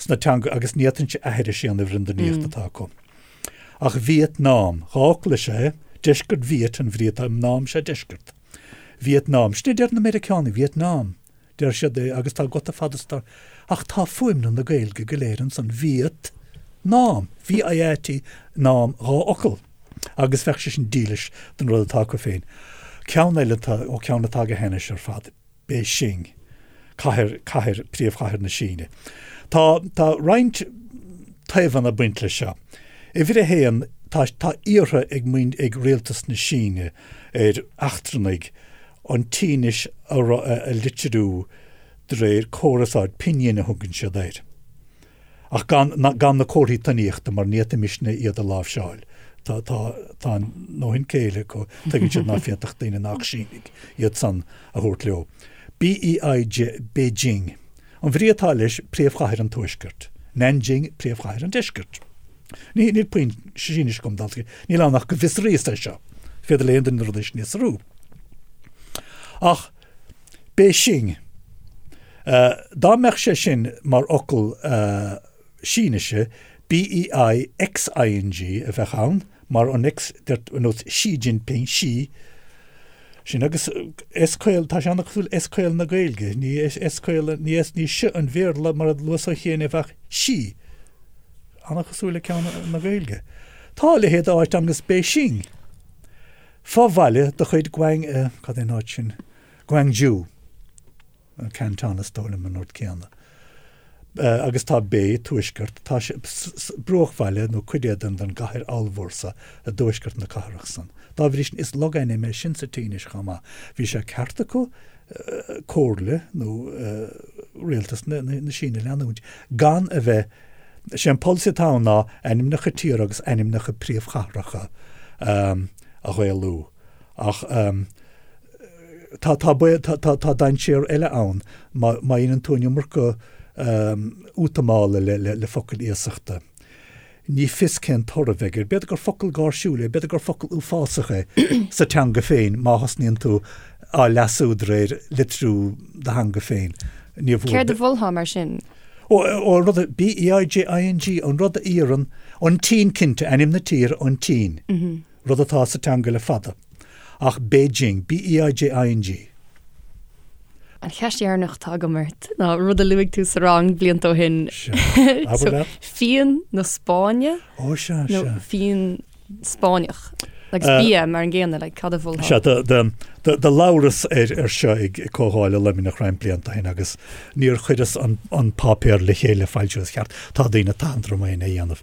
sna teanga agus ní fhéadfainnse aithris a dhéanamh ar an dtuiníocht atá acu. Ach Vietnam, dá fhocal is ea é, deisceart Viet an bhrí atá, Nam is ea deisceart. Vietnam, sin a deir na Meiriceánaigh, Vietnam. Deir siad é agus tá guta fada sa Ach tá fuaimniú na Gaeilge go léir ansan, Viet Nam, V-I-E-T, Nam, dá fhocal. Agus bheadh sé sin dílis don rud atá acu féin. Ceann eile atá, ó ceann atá go hainnis ar fad, Beijing, cathair, cathair, príomhchathair na Síne. Tá, tá roinnt taobhanna ag baint leis seo. Uimhir a haon, tá, tá iarrtha ag muin, ag rialtas na Síne ar eachtrannaigh an tSínis a litriú de réir córas áirid, pinyin a thugann siad air, ach gan gan na comharthaí tuiníochta mar ní fhéadfaimisne iad a láimhseáil. Tá tá tá a ndóthain céille acu, tuigeann siad ná féadfadh daoine nach Sínigh iad san a thabhairt leo. BEIJ Beijing. An bhrí atá leis, príomhchathair an tuaiscirt. Nanjing, príomhchathair an deiscirt. Ní, níl puinn Sínis agam, dal, níl ann ach go bhfiosraíos é seo. Féidir le aon duine na rudaí sin a fhiosrú. Ach Beijing, dá mbeadh sé sin mar fhocal. Sínise, BEI-XING a bheadh ann, mar an X, ar nós Xi Jinping, Xi, sin agus S caol, tá sé an-chosúil S caol na Gaeilge, ní S caol, ní S, ní S an Bhéarla mar a luas ó chian é bheadh Xi, an-chosúil le ceann na Gaeilge. Tá a leithéid d'áit ann agus Beijing, fo-bhaile de chuid Guang, cad é an áit sin, Guangzhou. Canton is dóigh liom an rud céanna. Agus tá Bei, tuaisceart, tá sé, bruachbhaile nó cuid é den den gcathair ollmhór so i dtuaisceart na cathrach san. Dá bhrí sin is logainm é sin sa tSínis chomh maith. Bhí sé ceart acu comhairle nó rialtas na na Síne a leanúint gan a bheith, sé an polasaí atá ann ná ainmneacha tíortha agus ainmneacha príomhchathracha a Ghaelú. Ach Tá, tá baol, tá, tá, tá dainséar eile ann má, má dhéanann tú an iomarca útamála le, le, le focail iasachta. Ní fios cén toradh a bheidh air. B'fhéidir gur focal gáirsiúil é, b'fhéidir gur focal uafásach é sa teanga féin má thosnaíonn tú á leasú de réir litriú do theanga féin. Ní bhfuair. Céard a mholfá mar sin? Ó, ó, an rud a, B-E-I-J-I-N-G, an rud a iarrann an tSín cinnte, ainm na tíre, an tSín. Rud atá sa teanga le fada. Ach Beijing, B-E-I-J-I-N-G. An cheist dheireanach atá agam ort ná rud a luaigh tú sa rang blianta ó shin. Sea. Abair leat. Fíon na Spáinne? Ó sea, sea. Nó fíon Spáinneach. Agus bia mar an gcéanna, like, cad a mholfá? Sea, do labhras ar seo ag Comhdháil i Luimneach roinnt blianta ó shin agus níor chuireas an páipéar le chéile le foilsiú is ceart. Tá daoine tathantach orm é a dhéanamh.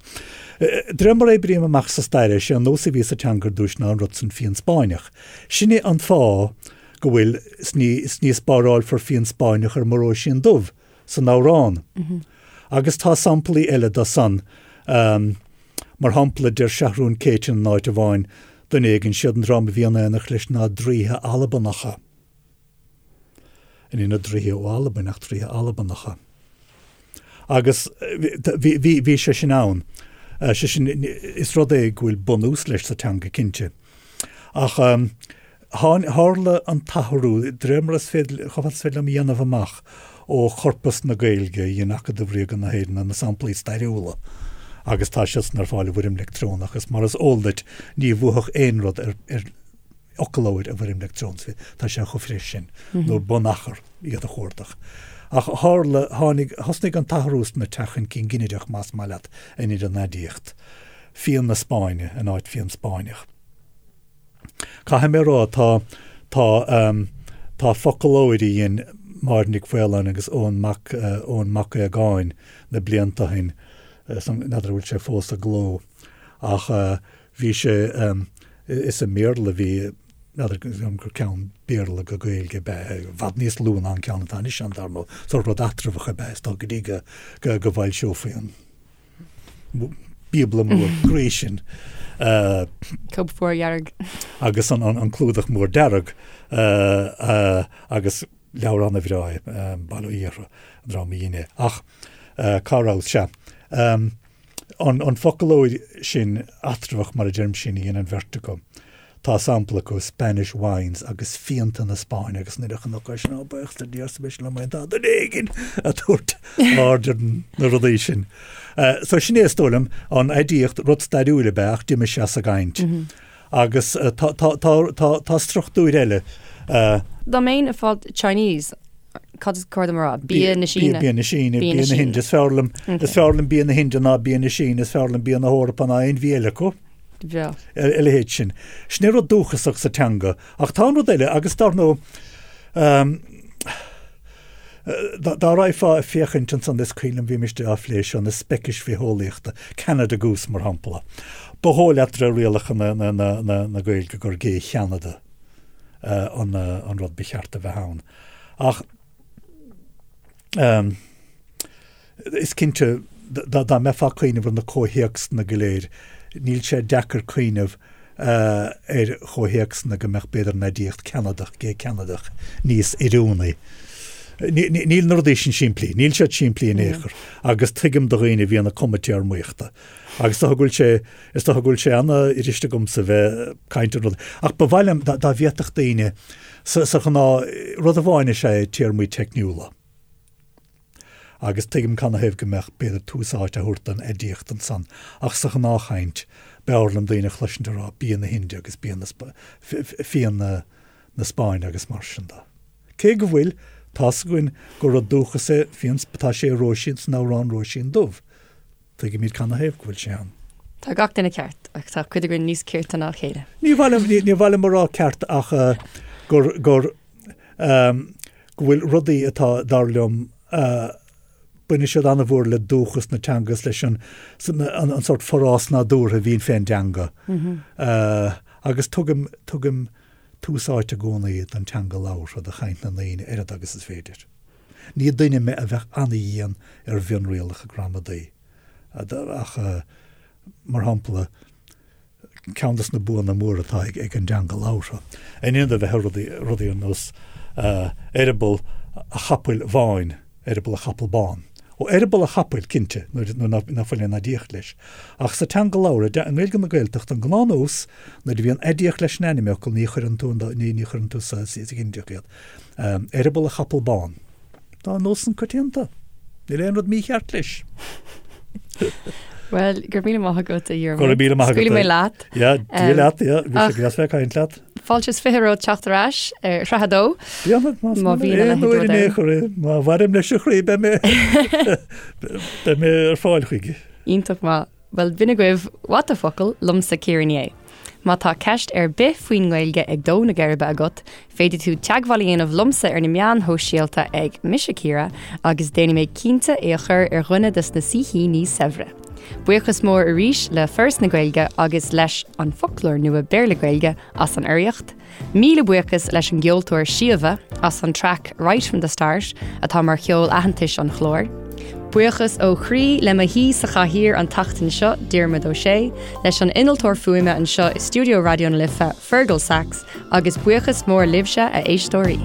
De réir mar a oibrím amach sa stair é, sé an nós a bhí sa teanga ar dtúis ná an rud san fíon Spáinneach. Sin é an fáth go bhfuil 's ní, 's ní spárálfar fíon Spáinneach ar mo Róisín Dubh san amhrán. Agus tá samplaí eile de san. Mar shampla, deir Seathrún Céitinn in áit amháin, duine éigin, siad an dream a bhí in éineacht leis ná draoithe Albanacha. Ní na draoithe ó Albain ach draoithe Albanacha. Agus bhí sé sin ann. Sé sin, is rud é go bhfuil bunús leis sa teanga, cinnte. Ach tharla an t-athrú, de réir mar is féidir, chomh fada is féidir liom a dhéanamh amach ó chorpas na Gaeilge a dhein Acadamh Ríoga na hÉireann, na samplaí stairiúla, agus tá siad san ar fáil i bhfoirm leictreonach, agus mar is eol duit, ní bhuafadh aon rud ar fhoclóir i bhfoirm leictreonach, tá sé chomh fris sin, nó bunachar iad a chuardach. Ach tharla, tháinig, thosnaigh an t-athrú sna teacht chun cinn ginideach, más maith leat, in idir an aidiacht. Fíon na Spáinne in áit fíon Spáinneach. Caithfidh mé a rá, tá, tá, tá foclóir a dhein Máire Nic Mhaoláin agus Eoin Mac, Eoin Mac Aogáin na blianta ó shin, n'fheadar an bhfuil sé fós i gcló, ach Bhí sé, is i mBéarla a bhí, n'fheadar gur ceann Béarla go Gaeilge ab ea é, i bhfad níos lú ná an ceann atá anois ann, dar ndóigh, sórt rud eatramhach ab ea é, is dóigh, go dtí go go bhfoilseofaí an Bíobla mór groí sin. Cóip mhór dhearg. Agus an clúdach mór dearg agus leabhar an-bhreá é, Bail ó Dhia orthu, an dream a dhein é. Ach cá rabhas? Sea. An foclóir sin eatramhach, mar a deirim, sin a dhein an bheirt acu. Tá sampla acu, Spanish wines agus fíonta na Spáinne agus nuair a chonac é sin, ó, buíochas le Dia arsa mise liom féin, tá duine éigin ag tabhairt aird ar na rudaí sin. So sin é is dóigh liom, an aidiacht, rud stairiúil ab ea ach d'imigh sé as an gcaint. Agus tá, tá, tá, tá, tá struchtúir eile. Dá mbeinn ag fáil Chinese, Cad is cóir dom a rá? Bia na Síne. Bia na Síne, bia na hInde. Is fearr liom, is fearr liom bia na hInde ná bia na Síne, is fearr liom bia na hEorpa ná aon bhia eile acu. Bhreá. A leithéid sin. Sin é rud dúchasach sa teanga. Ach tá an rud eile, agus dar ndóigh, dá raghfá ag féachaint ansan, is cuimhin liom bhí mise á phlé seo, na speicis bhitheolaíochta, Canada Goose mar shampla. Ba dhóigh leat de réir rialacha na Gaeilge gur gé Cheanada. an rud ba cheart a bheith ann. Ach is cinnte, dá mbeifeá ag cuimhneamh ar na comhthéacsanna go léir, níl sé deacair cuimhneamh ar chomhthéacsanna go mbeadh b'fhéidir an aidiacht Ceanadach, gé Ceanadach, níos oiriúnaí. Níl na rudaí sin simplí, níl siad simplí in aon chor, agus tuigim do dhaoine a bhíonn ag cumadh téarmaíochta. Agus is dócha go bhfuil sé, is dócha go bhfuil sé an-fhuirist agamsa bheith ag caint ar rud, ach ba mhaith liom dá bhféadfadh daoine, sa, sa ghnáth, rud amháin is ea téarmaí teicniúla. Agus tuigim canathaobh go mbeadh, b'fhéidir, tús áite á thabhairt don aidiacht ansan, ach sa ghnáthchaint, b'fhearr liom daoine a chloisint ag rá bia na hIndia agus bia na, fíon na, na Spáinne agus mar sin de. Cé go bhfuil, tá's againn gur rud dúchas é fíon, tá sé i Róisín, san amhrán Róisín Dubh. Tuigimid canathaobh go bhfuil sé ann. Tá gach duine ceart, ach tá cuid againn níos cirte ná a chéile. Ní mhaith liom, ní mhaith liom a rá ceart ach gur, gur, go bhfuil rudaí atá, dar liom, baineann siad an-mhór le dúchas na teanga is leis an, an sórt forás nádúrtha a bhíonn fén dteanga. Agus tugaim, tugaim tús áite i gcónaí don teanga labhartha, do chaint na ndaoine, oiread agus is féidir. Ní duine mé a bheadh an-dhian ar mhionrialacha gramadaí, ach, mar shampla, ceann de na buanna móra atá ag an dteanga labhartha, in ionad a bheith ag rudaí, rudaí ar nós eireaball a chapaill bháin, eireaball a chapall bán. Ó, eireaball a chapaill, cinnte, nuair nach bhfuil aon aidiacht leis. Ach sa teanga labhartha, i nGaeilge na Gaeltachta, an gnáthnós, nuair a bhíonn aidiacht leis an ainmfhocal, ní chuireann tú, ní chuireann tú sa ghinideach iad. Eireaball a chapall bán. Tá an nós san coitianta. Níl aon rud mícheart leis. Bhuel, go raibh míle maith agat, a Dhiarmaid. Go raibh míle maith agat. Scaoilfidh mé leat. Yeah, Dia leat, yeah. Bhí sé deas bheith ag caint leat. Fáilte is 20 romhat teacht ar ais ar shraith a dó. Déanfad, más Má bhíonn a leithéid rud ann. chor é. Má mhairim leis a chroí, beidh mé beidh mé ar fáil chuige. Iontach maith. Bhuel, b'in agaibh What the Focal, liomsa Ciara Ní É. Má tá ceist ar bith faoin nGaeilge ag dó na geirbe agat, féadfaidh tú teagmháil a dhéanamh liomsa ar na meáin shóisialta ag Mise Ciara agus déanfaidh mé cinnte é a chur ar dhuine des na saoithíní saibhre. Buíochas mór arís le Foras na Gaeilge agus leis An Foclóir Nua Béarla-Gaeilge as an urraíocht. Míle buíochas leis an gceoltóir Síomha as an traic Right From The Start atá mar cheol aitheantais an chláir. Buíochas ó chroí le mo shaoi sa chathaoir an tseachtain seo, Diarmuid Ó Sé, leis an innealtóir fuaime anseo i stiúideo Raidió na Life, Fergal Sachs, agus buíochas mór libhse, a éisteoirí.